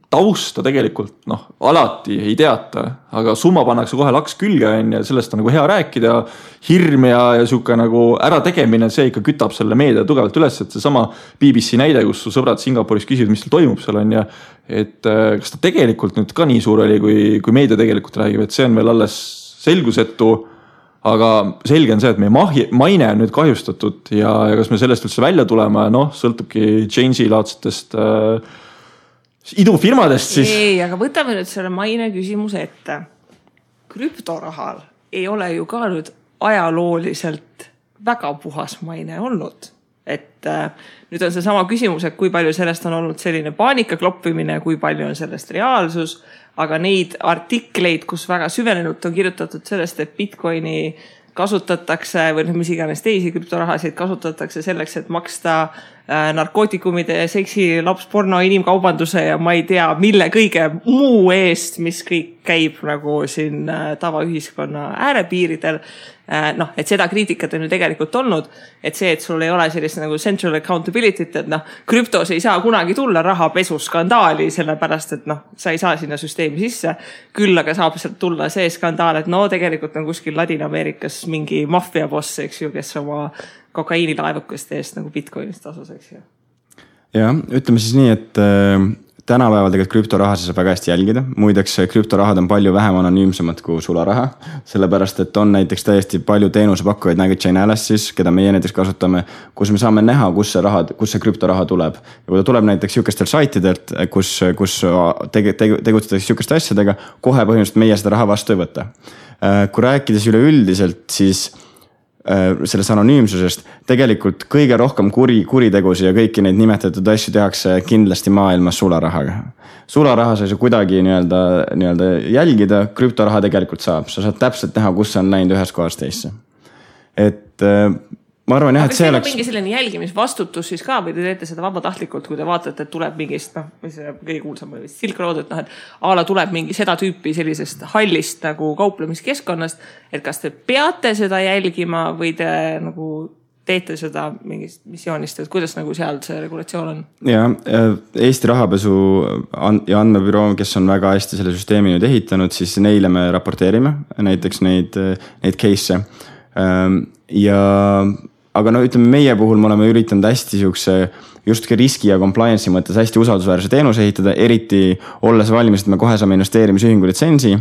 [SPEAKER 2] tausta tegelikult alati ei teata, aga summa pannakse kohe laks külge ja sellest on nagu hea rääkida, hirm ja siuke nagu ärategemine, see ikka kütab selle meedia tugevalt üles, et see sama BBC näide, kus su sõbrad Singapuris küsivad, mis tal toimub seal on ja et kas ta tegelikult nüüd ka nii suur oli, kui meedia tegelikult räägib, et see on veel alles selgusetu, aga selge on see, et meie maine on nüüd kahjustatud ja kas me sellest üldse välja tuleme, sõltubki Change'i laadsetest idufirmadest siis.
[SPEAKER 1] Ei, aga võtame nüüd selle maine küsimuse ette. Krüptorahal ei ole ju ka nüüd ajalooliselt väga puhas maine olnud. Et nüüd on see sama küsimus, et kui palju sellest on olnud selline paanika kloppimine, kui palju on sellest reaalsus, aga neid artikleid, kus väga süvenenult on kirjutatud sellest, et Bitcoini kasutatakse või mis iganes teisi krüptorahasid kasutatakse selleks, et maksta narkootikumide, seksi, lapsporno, inimkaubanduse ja ma ei tea, mille kõige muu eest, mis kõik käib nagu siin tavaühiskonna äärepiiridel. Noh, et seda kriitikat on ju tegelikult olnud, et see, et sul ei ole sellist nagu central accountability't, et noh, krüptos ei saa kunagi tulla rahapesuskandaali, sellepärast, et noh, sa ei saa sinna süsteemi sisse. Küll aga saab sealt tulla see skandaal, et no tegelikult on kuskil Ladina-Ameerikas mingi maffiaboss, eks ju, kes oma kokaiinilaevukeste eest nagu Bitcoinist tasus, eks ju.
[SPEAKER 3] Ja, ütleme siis nii, et tänapäeval tegelikult krüptorahasid saab väga hästi jälgida. Muideks krüptorahad on palju vähem anonüümsemad kui sularaha, sellepärast et on näiteks täiesti palju teenusepakkujaid nagu Chainalysis, keda meie näiteks kasutame, kus me saame näha, kus see krüptoraha tuleb. Ja kui ta tuleb näiteks sihukestel saitidelt, kus tegutsetakse sihukeste asjadega, kohe põhimõtteliselt meie seda raha vastu ei võta. Kui rääkides üleüldiselt, siis sellest anonüümsusest tegelikult kõige rohkem kuritegusi ja kõiki neid nimetatud asju tehakse kindlasti maailmas sularahaga. Sularaha sa ei saa kuidagi nii-öelda jälgida, krüptoraha tegelikult saab. Sa saad täpselt näha, kus on läinud ühes kohas teisse. Et ma arvan, et see oleks...
[SPEAKER 1] mingi selline jälgimisvastutus siis ka või te teete seda vabatahtlikult, kui te vaatate, et tuleb mingist, mis kõige kuulsam või Silk Road, et et ala tuleb mingi seda tüüpi sellisest hallist nagu kauplemiskeskkonnast, et kas te peate seda jälgima või te nagu teete seda mingist missioonist, et kuidas nagu seal see regulatsioon on?
[SPEAKER 3] Ja, Eesti rahapesu ja andmebüroo, kes on väga hästi selle süsteemi nüüd ehitanud, siis neile me raporteerime näiteks neid case'e aga no ütleme meie puhul me oleme üritanud hästi justki riski ja compliance'i mõttes hästi usaldusväärse teenuse ehitada, eriti olles valmis, et me kohe saame investeerimisühingu litsentsi,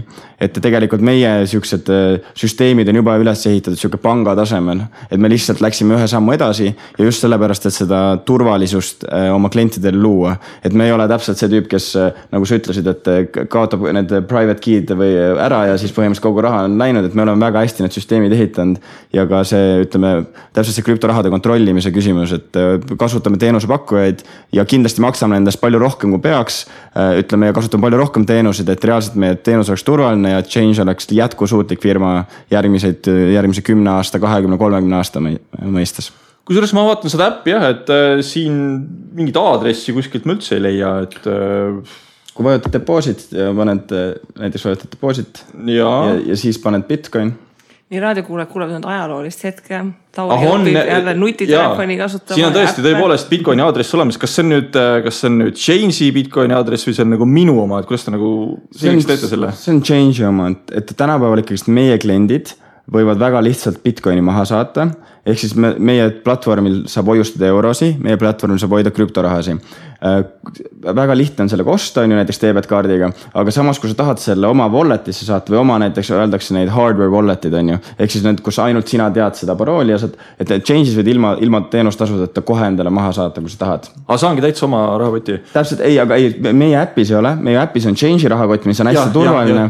[SPEAKER 3] et tegelikult meie siuksed süsteemid on juba üles ehitatud siuke panga tasemel, et me lihtsalt läksime ühe sammu edasi ja just sellepärast, et seda turvalisust oma klientidele luua, et me ei ole täpselt see tüüp, kes nagu sa ütlesid, et kaotab need private key'd või ära ja siis põhimõtteliselt kogu raha on läinud, et me oleme väga hästi need süsteemid ehitanud ja ka see, ütleme, täpselt see krüptorahade kontrollimise küsimus, et kasutame teenusepakkujaid ja kindlasti maksame endast palju rohkem kui peaks, ütleme ja kasutame palju rohkem teenuseid, et reaalselt meie teenus oleks turvaline ja Change oleks jätkusuutlik firma järgmise 10 aasta, 20-30 aasta mõistes.
[SPEAKER 2] Kusjuures ma vaatan seda äppi jah, et siin mingit aadressi kuskilt ma üldse ei leia, et
[SPEAKER 3] kui vajutad deposit ja näiteks vajutad deposit ja siis paned Bitcoin.
[SPEAKER 1] Nii raadiokuulajad kuulevad ajaloolist hetke, Tauri õpib jälle nutitelefoni kasutama.
[SPEAKER 2] Siin on tõesti tõepoolest Bitcoini aadress olemas. Kas see on nüüd Change'i Bitcoini aadress või see on nagu minu oma, et kuidas ta nagu selgiks teete selle?
[SPEAKER 3] See on Change'i oma, et tänapäeval ikkagi meie kliendid võivad väga lihtsalt Bitcoini maha saata, ehk siis meie platvormil saab hoiustada eurosi, meie platvormil saab hoida krüptorahasi. Väga lihtne on sellega osta, on ju näiteks debetkaardiga, aga samas kui sa tahad selle oma walletisse saata või oma näiteks öeldakse neid hardware walletid on ju, ehk siis need, kus ainult sina tead seda parooli ja saad, et Change'is võid ilma teenustasudeta kohe endale maha saata, kui sa tahad.
[SPEAKER 2] Aga saangi täitsa oma rahakoti?
[SPEAKER 3] Täpselt, aga meie äppis ei ole, meie äppis on Change'i rahakott, mis on hästi turvaline,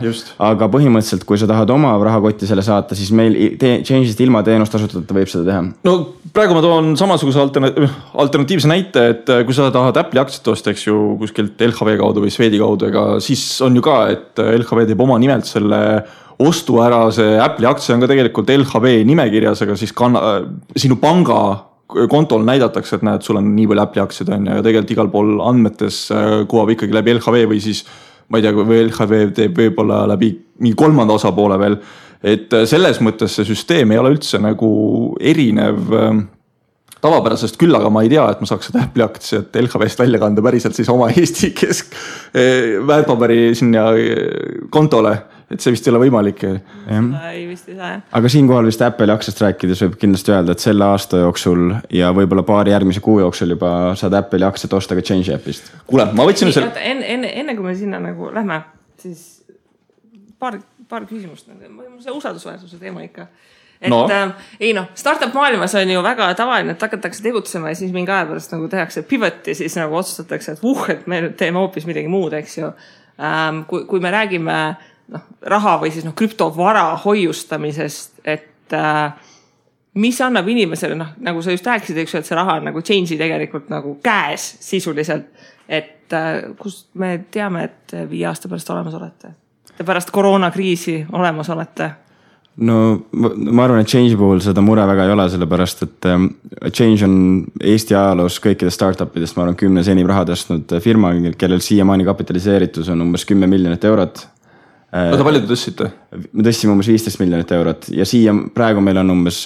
[SPEAKER 3] aga põhimõtteliselt, kui sa tahad oma rahakotti selle saata, siis meil Change'ist ilma teenustasudeta võib seda teha.
[SPEAKER 2] No praegu ma toon samasuguse alternatiivse näite, et kui sa tahad Apple'i aktsiat osta, eks ju, kuskilt LHV kaudu või Swedi kaudu, ega siis on ju ka, et LHV teeb oma nimelt selle ostu ära, see Apple'i aktsia on ka tegelikult LHV nimekirjas, aga siis sinu panga kontol näidatakse, et näed, sul on nii palju Apple'i aktsiad on ja tegelikult igal pool andmetes kuvab ikkagi läbi LHV või siis, ma ei tea, või LHV teeb võib-olla läbi mingi kolmanda osapoole veel, et selles mõttes see süsteem ei ole üldse nagu erinev tavapärasest, küll aga ma ei tea, et ma saaks seda Apple'i aktsiat LHV-st välja kanda päriselt siis oma Eesti väärtpaberi sinna kontole, et see vist ei ole võimalik.
[SPEAKER 1] Ei vist ei saa.
[SPEAKER 3] Aga siinkohal vist Apple'i aktsiast rääkides võib kindlasti öelda, et selle aasta jooksul ja võib-olla paari järgmise kuu jooksul juba saad Apple'i aktsiat osta ka Change appist.
[SPEAKER 2] Kuule, ma võtsin selle...
[SPEAKER 1] Enne kui me sinna nagu lähme, siis paar küsimust. See usaldusväärsuse teema ikka. Et startup maailmas on ju väga tavaline, et hakatakse tegutsema ja siis mingi aja pärast nagu tehakse pivot ja siis nagu otsustatakse, et me nüüd teeme hoopis midagi muud, eks ju. Kui me räägime raha või siis krüptovara hoiustamisest, et mis annab inimesele, nagu sa just rääkisid, eks ju, et see raha on nagu Change'i tegelikult nagu käes sisuliselt, et kust me teame, et 5 aasta pärast olemas olete? Te pärast koroonakriisi olemas olete?
[SPEAKER 3] No ma arvan, et Change puhul seda mure väga ei ole, sellepärast, et Change on Eesti ajaloos kõikidest startupidest, ma arvan, 10 enim raha tõstnud firma, kellel siiamaani kapitaliseeritus on umbes 10 miljonit eurot.
[SPEAKER 2] Oota, palju te tõstsite?
[SPEAKER 3] Me tõstsime umbes 15 miljonit eurot ja siia praegu meil on umbes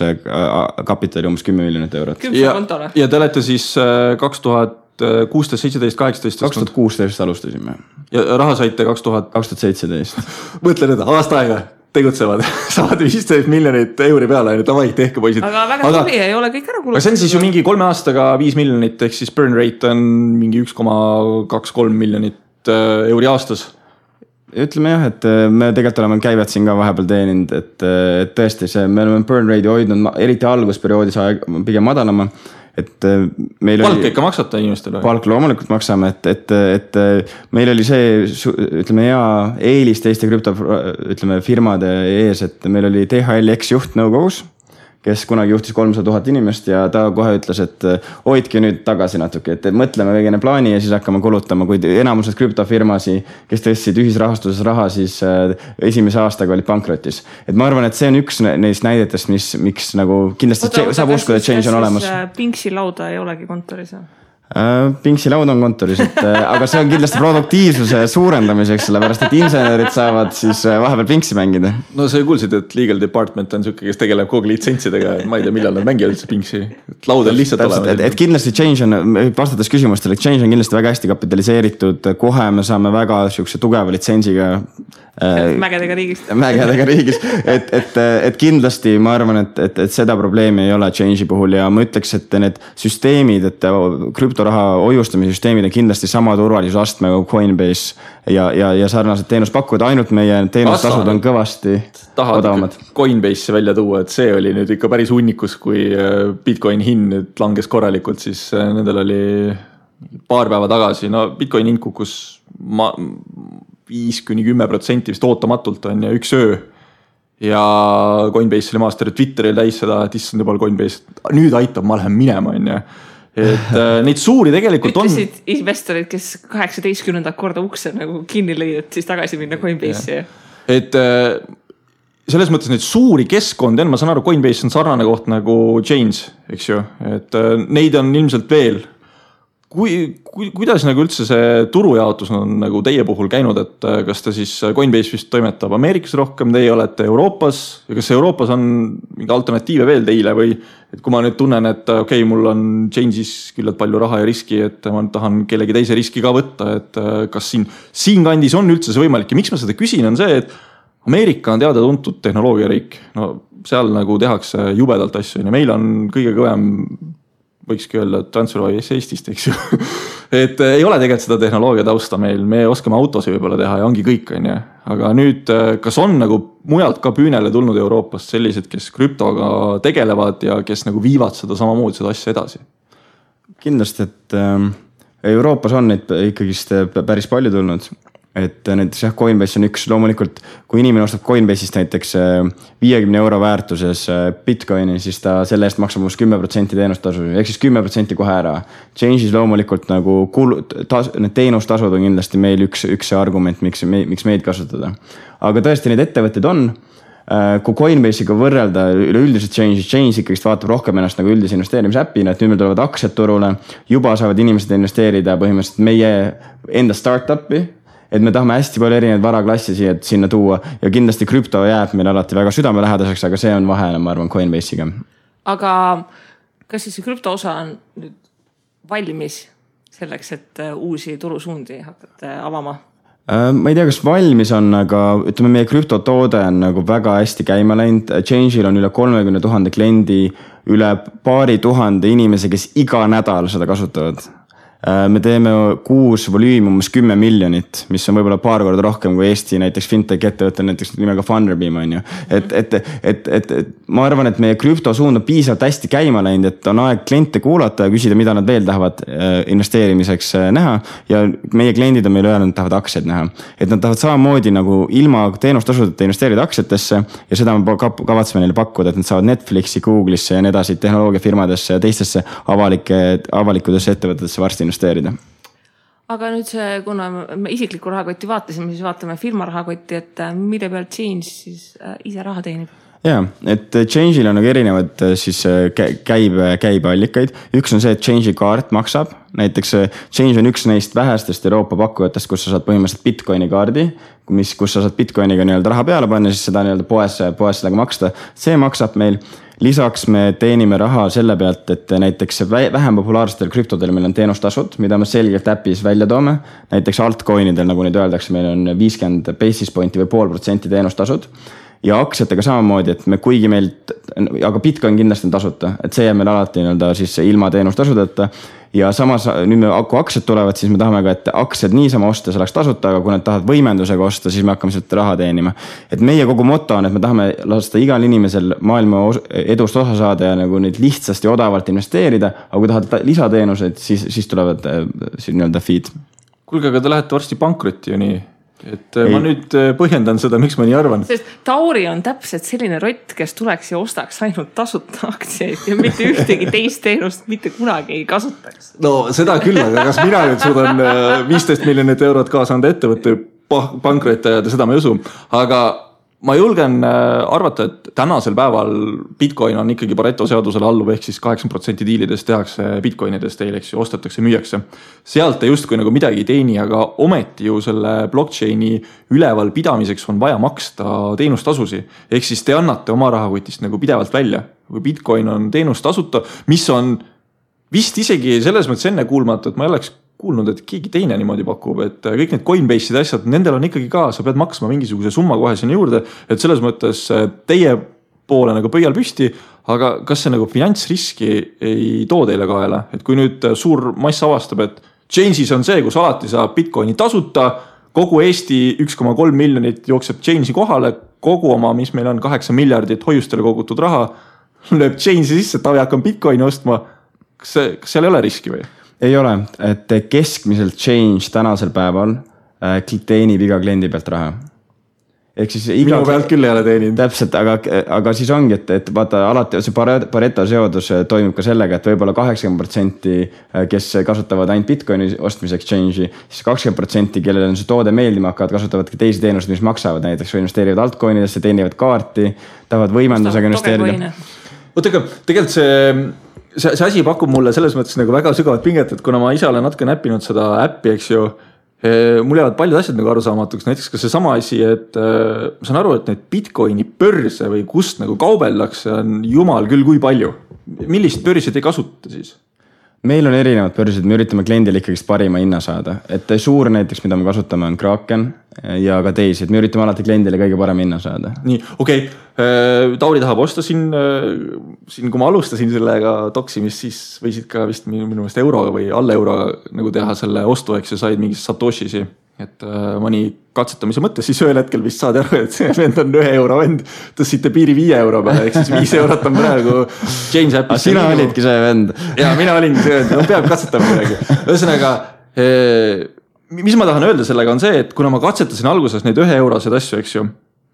[SPEAKER 3] kapitali umbes 10 miljonit eurot.
[SPEAKER 2] Ja te olete siis 2016, 17, 18?
[SPEAKER 3] 2016 alustasime.
[SPEAKER 2] Ja raha saite
[SPEAKER 3] 2017.
[SPEAKER 2] Mõtle nüüd, aasta aega tegutsevad, saavad 15 miljonit euri peale, davai, tehke poisid.
[SPEAKER 1] Aga väga tuli ei ole kõik ära kulutada.
[SPEAKER 2] Aga see on siis ju mingi 3 aastaga 5 miljonit, ehk siis burn rate on mingi 1,23 miljonit euri aastas.
[SPEAKER 3] Ütleme jah, et me tegelikult oleme käivad siin ka vahepeal teeninud, et tõesti me oleme burn rate'i hoidnud, eriti algusperioodis pigem madalama. Et meil
[SPEAKER 2] palk ikka maksata inimestele?
[SPEAKER 3] Palk loomulikult maksame, et meil oli see, ütleme hea eelis teiste firmade ees, et meil oli DHL ex-juht nõukogus, kes kunagi juhtis 300 000 inimest ja ta kohe ütles, et hoidke nüüd tagasi natuke, et mõtleme veegene plaani ja siis hakkame kulutama, kuid enamused krüptofirmasi, kes tõstsid ühisrahastuses raha, siis esimese aastaga olid pankrotis. Et ma arvan, et see on üks neist näidetest, miks nagu kindlasti saab uskuda, et change on olemas.
[SPEAKER 1] Pinksi lauda ei olegi kontoris?
[SPEAKER 3] Pinksi laud on kontoris, aga see on kindlasti produktiivsuse suurendamiseks, sellepärast et insenerid saavad siis vahepeal pinksi mängida.
[SPEAKER 2] No sa kuulsid, et legal department on selline, kes tegeleb kogu litsentsidega, ma ei tea, millal nad mängivad üldse pinksi. Laud on lihtsalt olema.
[SPEAKER 3] Et kindlasti change on, vastates küsimustele, change on kindlasti väga hästi kapitaliseeritud, kohe me saame väga tugeva litsentsiga
[SPEAKER 1] mägedega
[SPEAKER 3] riigis, et kindlasti ma arvan, et seda probleemi ei ole change'i puhul ja ma ütleks, et need süsteemid, et krüptoraha hoiustamise süsteemid on kindlasti sama turvalisusastmega kui Coinbase ja sarnased teenuspakkujad, ainult meie teenustasud on kõvasti odavamad.
[SPEAKER 2] Coinbase'i välja tuua, et see oli nüüd ikka päris hunnikus, kui Bitcoin hind nüüd langes korralikult, siis nendel oli paar päeva tagasi, no Bitcoin hind kukkus 5-10% vist ootamatult on ja üks öö. Ja Coinbase oli master Twitteril täis seda, et issand juba Coinbase, nüüd aitab, ma lähen minema on ja. Et neid suuri tegelikult on.
[SPEAKER 1] Ütlesid investorid, kes 18. korda ukse nagu kinni lõid, et siis tagasi minna Coinbase'i.
[SPEAKER 2] Et selles mõttes neid suuri keskkondi on, ma saan aru, Coinbase on sarnane koht nagu Chains, eks ju, et neid on ilmselt veel. Kuidas nagu üldse see turujaotus on nagu teie puhul käinud, et kas ta siis Coinbase vist toimetab Ameerikas rohkem, teie olete Euroopas ja kas Euroopas on mingi alternatiive veel teile või et kui ma nüüd tunnen, et okei, mul on Change'is küllalt palju raha ja riski, et ma tahan kellegi teise riski ka võtta, et kas siin kandis on üldse see võimalik ja miks ma seda küsin on see, et Ameerika on teada tuntud tehnoloogiariik, no seal nagu tehakse jubedalt asju ja meil on kõige kõvem võikski öelda TransferWise Eestist, eks ju. Et ei ole tegelikult seda tehnoloogia tausta meil, me oskame autosi võib-olla teha ja ongi kõik, on ja. Aga nüüd, kas on nagu mujalt ka püünele tulnud Euroopast sellised, kes krüptoga tegelevad ja kes nagu viivad seda samamoodi seda asja edasi?
[SPEAKER 3] Kindlasti, et Euroopas on neid ikkagist päris palju tulnud. Et näiteks jah, Coinbase on üks loomulikult, kui inimene ostab Coinbase'ist näiteks 50 € väärtuses Bitcoini, siis ta selle eest maksab 10% teenustasu, ehk siis 10% kohe ära. Change'is loomulikult nagu need teenustasud on kindlasti meil üks argument, miks meid kasutada. Aga tõesti neid ettevõtted on, kui Coinbase'iga võrrelda üleüldiselt Change ikkagist vaatab rohkem ennast nagu üldise investeerimisäppina, et nüüd meil tulevad aktsiad turule, juba saavad inimesed investeerida põhimõtteliselt meie enda startup'i, et me tahame hästi palju erinevaid varaklassi sinna tuua ja kindlasti krüpto jääb meil alati väga südamelähedaseks, aga see on vahele, ma arvan, Coinbase'iga.
[SPEAKER 1] Aga kas siis see krüpto osa on nüüd valmis selleks, et uusi turusuundi hakata avama?
[SPEAKER 3] Ma ei tea, kas valmis on, aga ütleme, meie krüptotoode on nagu väga hästi käima läinud. Change'il on üle 30 000 kliendi, üle paari tuhande inimese, kes iga nädal seda kasutavad. Me teeme kuus volüümi umbes 10 miljonit, mis on võib-olla paar korda rohkem kui Eesti näiteks fintech ettevõte näiteks nimega Funderbeam on ju. Et ma arvan, et meie krüptosuund on piisavalt hästi käima läinud, et on aeg kliente kuulata ja küsida, mida nad veel tahavad investeerimiseks näha ja meie kliendid on meile öelnud, et tahavad aktsiaid näha. Et nad tahavad samamoodi nagu ilma teenustasudeta investeerida aktsiatesse ja seda me kavatseme neile pakkuda, et nad saavad Netflixi, Google'isse ja nii edasi tehnoloogiafirmadesse ja teistesse avalikudesse ettevõtetesse varsti investeerida.
[SPEAKER 1] Aga nüüd see, kuna me isikliku rahakotti vaatasime, siis vaatame firma rahakotti, et mille pealt Change siis ise raha teenib?
[SPEAKER 3] Jaa, et Change'il on nagu erinevad siis käibeallikaid. Üks on see, et Change'i kaart maksab. Näiteks Change on üks neist vähestest Euroopa pakkujatest, kus sa saad põhimõtteliselt Bitcoini kaardi, kus sa saad Bitcoiniga nii-öelda raha peale panna, siis seda nii-öelda poes sellega maksta. See maksab meil. Lisaks me teenime raha selle pealt, et näiteks vähem populaarsetel krüptodel meil on teenustasud, mida me selgelt äpis välja toome. Näiteks altcoinidel, nagu nüüd öeldakse, meil on 50 basis pointi või 0,5% teenustasud. Ja aktsiatega samamoodi, et me kuigi meilt, aga Bitcoin kindlasti on tasuta, et see jääb meil alati nii-öelda siis ilma teenustasudeta. Ja samas nüüd kui aktsiad tulevad, siis me tahame ka, et aktsiad niisama osta, see oleks tasuta, aga kui nad tahavad võimendusega osta, siis me hakkame sealt raha teenima. Et meie kogu moto on, et me tahame lasta igal inimesel maailma edust osa saada ja nagu neid lihtsasti odavalt investeerida, aga kui tahad lisateenuseid, siis tulevad nii-öelda feed.
[SPEAKER 2] Kuulge, aga te lähete varsti pankrotti ju nii. Et ma nüüd põhjendan seda, miks ma nii arvan.
[SPEAKER 1] Sest Tauri on täpselt selline rott, kes tuleks ja ostaks ainult tasuta aktsiaid ja mitte ühtegi teist teenust mitte kunagi ei kasutaks.
[SPEAKER 2] No seda küll, aga kas mina nüüd suudan 15 miljonit eurot kaasa anda ettevõtte pankrotti ajada, seda ma ei usu. Aga ma julgen arvata, et tänasel päeval Bitcoin on ikkagi Pareto seadusele alluv, ehk siis 8% diilidest tehakse Bitcoinidest teileks ja ostetakse, müüakse. Sealt just kui nagu midagi ei teeni, aga ometi ju selle blockchaini üleval pidamiseks on vaja maksta teenustasusi. Ehk siis te annate oma rahakotist nagu pidevalt välja. Kui Bitcoin on teenustasuta, mis on vist isegi selles mõttes enne kuulmatu, et ma ei oleks kuulnud, et keegi teine niimoodi pakub, et kõik need Coinbase'id asjad, nendel on ikkagi ka, sa pead maksma mingisuguse summa kohe sinna juurde, et selles mõttes teie poole nagu pöial püsti, aga kas see nagu finantsriski ei too teile kaela? Et kui nüüd suur mass avastab, et Change'is on see, kus alati saab Bitcoini tasuta, kogu Eesti 1,3 miljonit jookseb Change'i kohale, kogu oma, mis meil on 8 miljardit hoiustele kogutud raha, lööb Change'i sisse, Tavi hakkab Bitcoini ostma. Kas seal ei ole riski või?
[SPEAKER 3] Ei ole, et keskmiselt Change tänasel päeval teenib iga kliendi pealt raha. Ehk siis
[SPEAKER 2] minu pealt küll ei ole teeninud.
[SPEAKER 3] Täpselt, aga siis ongi, et vaata alati see Pareto seadus toimub ka sellega, et võib-olla 80%, kes kasutavad ainult Bitcoini ostmiseks Change'i, siis 20%, kellel on see toode meeldima hakkavad, kasutavad ka teisi teenused, mis maksavad, näiteks investeerivad altcoinidesse, teenivad kaarti, tahavad võimendusega investeerida.
[SPEAKER 2] Tegelikult see asi pakub mulle selles mõttes nagu väga sügavat pinget, et kuna ma ise olen natuke näppinud seda äppi, eks ju, mul jäävad paljud asjad nagu arusaamatuks, näiteks ka see sama asi, et ma saan aru, et need Bitcoini börse või kust nagu kaubeldakse on jumal küll kui palju. Millist börsi te kasutate siis?
[SPEAKER 3] Meil on erinevad börsid, me üritame kliendile ikkagi parima hinna saada, et suur näiteks, mida me kasutame on Kraken ja ka teisi, et me üritame alati kliendile kõige parem hinna saada.
[SPEAKER 2] Nii, okei. Tauri tahab osta siin, kui ma alustasin sellega toksimist, siis võisid ka vist minu meelest euroga või alla euroga nagu teha selle ostu, eks ja said mingis Satoshisi. Et mõni katsetamise mõttes siis ühel hetkel vist saad aru, et see vend on 1 euro vend, tõstsite piiri 5 euro peale, ehk siis 5 eurot on praegu Change appis.
[SPEAKER 3] Sina olidki see vend.
[SPEAKER 2] Ja mina olingi see vend, no peab katsetama midagi. Ühesõnaga, mis ma tahan öelda sellega on see, et kuna ma katsetasin alguses neid 1 eurosed asju, eks ju,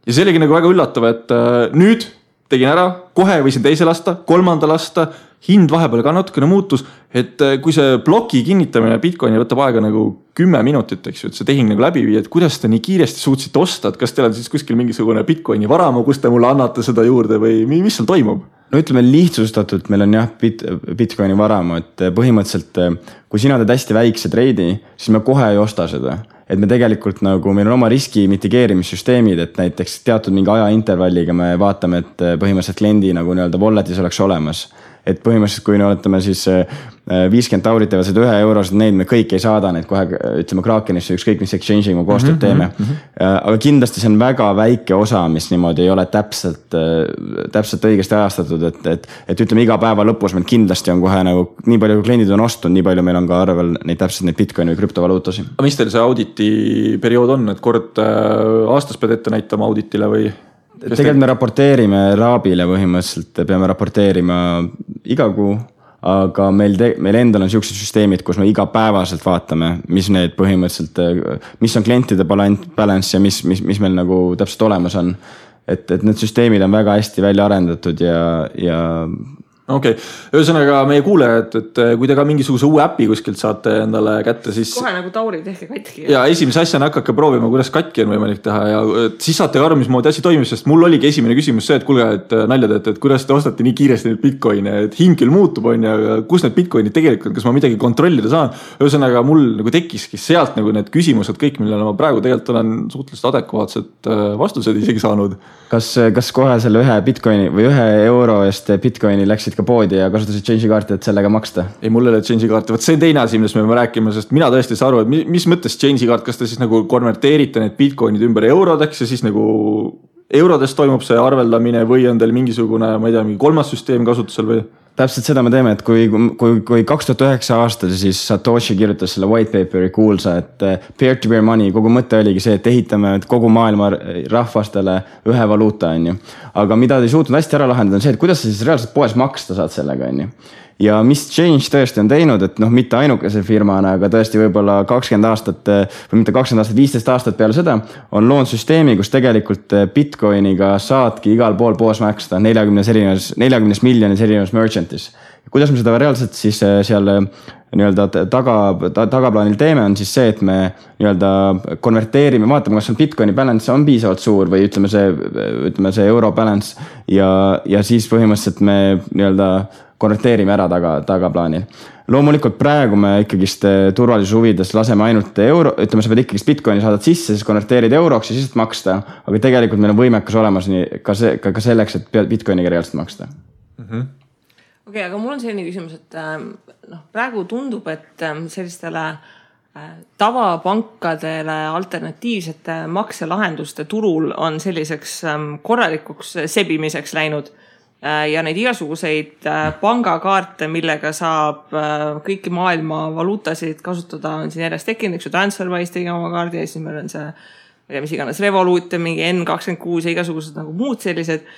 [SPEAKER 2] ja see oligi nagu väga üllatav, et nüüd tegin ära, kohe võisin teise lasta, 3. lasta, hind vahepeal ka natukene muutus, et kui see bloki kinnitamine Bitcoini võtab aega nagu 10 minutit, eks ju, et see tehing nagu läbi viia, et kuidas te nii kiiresti suutsite osta, et kas teil on siis kuskil mingisugune Bitcoini varamu, kus te mulle annate seda juurde või mis seal toimub?
[SPEAKER 3] No ütleme lihtsustatult, meil on jah Bitcoini varamu, et põhimõtteliselt kui sina teed hästi väikse treidi, siis me kohe ei osta seda. Et me tegelikult nagu, meil on oma riski mitigeerimissüsteemid, et näiteks teatud mingi ajaintervalliga me vaatame, et põhimõtteliselt kliendi nagu nii-öelda walletis oleks olemas. Et põhimõtteliselt, kui me oletame siis 50 taurit teevad seda 1 eurosed, neid me kõik ei saada, neid kohe ütleme Krakenisse, ükskõik mis exchange'i me koostööd teeme. Aga kindlasti see on väga väike osa, mis niimoodi ei ole täpselt õigesti ajastatud, et ütleme iga päeva lõpus meil kindlasti on kohe nagu nii palju kui kliendid on ostunud, nii palju meil on ka arvel neid täpselt neid Bitcoini või krüptovaluutasi.
[SPEAKER 2] Aga mis teil see auditi periood on, et kord aastas pead ette näitama auditile või?
[SPEAKER 3] Tegelikult me raporteerime Raabile põhimõtteliselt, peame raporteerima iga kuu, aga meil endal on sellised süsteemid, kus me igapäevaselt vaatame, mis need põhimõtteliselt, mis on klientide balance ja mis meil nagu täpselt olemas on. Et need süsteemid on väga hästi välja arendatud ja
[SPEAKER 2] Okei. Ühesõnaga meie kuulejad, et kui te ka mingisuguse uue äpi kuskilt saate endale kätte, siis
[SPEAKER 1] kohe nagu Tauri tehke katki.
[SPEAKER 2] Ja esimese asjana hakake proovima, kuidas katki on võimalik teha ja siis saate ka aru, mismoodi asi toimib, sest mul oligi esimene küsimus see, et kuulge, et nalja teete, et kuidas te ostate nii kiiresti neid bitcoine, et hind küll muutub on ja kus need bitcoinid tegelikult, kas ma midagi kontrollida saan. Ühesõnaga mul nagu tekkiski sealt nagu need küsimused kõik, millele ma praegu tegelikult olen suhteliselt adekvaatsed vastused isegi saanud.
[SPEAKER 3] Kas kohe selle ühe bitcoini või €1 eest bitcoini läksid ka poodi ja kasutasid change'i kaarti, et sellega maksta?
[SPEAKER 2] Ei, mul ei ole change'i kaarti. Võt see on teine asi, millest me peame rääkima, sest mina tõesti saa aru, et mis mõttes change'i kaart, kas te siis nagu konverteerite need bitcoinid ümber eurodeks ja siis nagu eurodest toimub see arveldamine või on teil mingisugune, ma ei tea, mingi kolmas süsteem kasutusel või?
[SPEAKER 3] Täpselt seda me teeme, et kui 2009 aastal siis Satoshi kirjutas selle white paperi kuulsa, et peer-to-peer money, kogu mõte oligi see, et ehitame kogu maailma rahvastele ühe valuuta, on ju. Aga mida te ei suutnud hästi ära lahendada on see, et kuidas sa siis reaalselt poes maksta saad sellega, on ju. Ja mis Change tõesti on teinud, et mitte ainukese firmana, aga tõesti võib-olla 20 aastat või mitte 20 aastat, 15 aastat peale seda on loonud süsteemi, kus tegelikult Bitcoiniga saadki igal pool poos maksta 40 miljonis erinevas merchantis. Kuidas me seda reaalselt siis seal nii-öelda tagaplaanil teeme on siis see, et me nii-öelda konverteerime, vaatame, kas on Bitcoini balance on piisavalt suur või ütleme see euro balance ja siis põhimõtteliselt me nii-öelda konverteerime ära tagaplaanil. Loomulikult praegu me ikkagist turvalisuse huvides laseme ainult euro, ütleme, sa pead ikkagist Bitcoini saadad sisse, siis konverteerid euroks ja siis maksta, aga tegelikult meil on võimekas olemas nii, ka selleks, et Bitcoiniga reaalselt maksta.
[SPEAKER 1] Okei, aga mul on selline küsimus, et praegu tundub, et sellistele tavapankadele alternatiivsete makselahenduste turul on selliseks korralikuks sebimiseks läinud ja neid igasuguseid pangakaarte, millega saab kõiki maailma valuutasid kasutada, on siin järjest tekkinud, eks ju TransferWise tegi oma kaardi ja siis meil on see, mis iganes Revolut ja mingi N26 ja igasugused nagu muud sellised.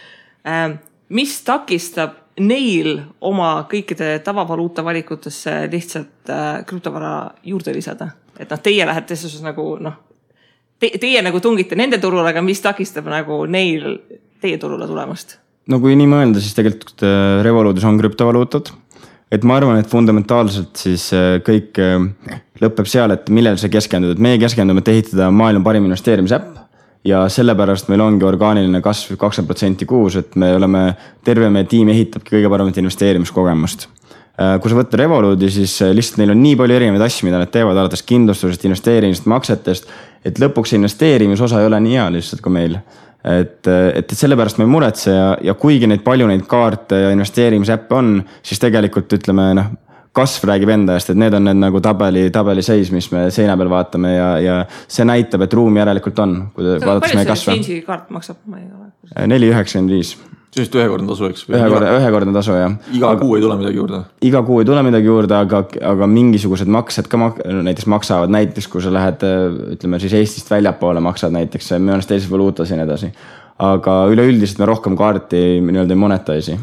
[SPEAKER 1] Mis takistab neil oma kõikide tavavaluuta valikutesse lihtsalt krüptovara juurde lisada? Et teie lähete siis nagu, teie nagu tungite nende turule, aga mis takistab nagu neil teie turule tulemast?
[SPEAKER 3] No kui nii mõelda, siis tegelikult Revolutis on krüptovaluutad. Et ma arvan, et fundamentaalselt siis kõik lõpeb seal, et millel see keskendud. Et meie keskendume, et ehitada maailma parim investeerimisäpp ja sellepärast meil ongi orgaaniline kasv 20% kuus, et me oleme terve meie tiim ehitabki kõige paremat investeerimiskogemust. Kui sa võtta Revoluti, siis lihtsalt neil on nii palju erinevaid asju, mida nad teevad alates kindlustusest, investeerimist, maksetest, et lõpuks investeerimisosa ei ole nii hea lihtsalt kui meil. Et sellepärast me ei muretse ja kuigi palju neid kaarte ja investeerimisäppe on, siis tegelikult ütleme, kasv räägib enda eest, et need on need nagu tabeli seis, mis me seina peal vaatame ja see näitab, et ruumi järelikult on, kui vaadates meie kasva.
[SPEAKER 1] Palju see kaart maksab?
[SPEAKER 3] 4,95.
[SPEAKER 2] Sellist ühekordne tasu, eks?
[SPEAKER 3] Ühekordne tasu, jah.
[SPEAKER 2] Iga kuu ei tule midagi juurde?
[SPEAKER 3] Iga kuu ei tule midagi juurde, aga mingisugused maksed ka näiteks maksavad. Näiteks, kui sa lähed, ütleme siis Eestist väljapoole maksad näiteks, mõnes teises valuutas ja nii edasi. Aga üleüldiselt me rohkem kaarti nii-öelda ei monetaisi.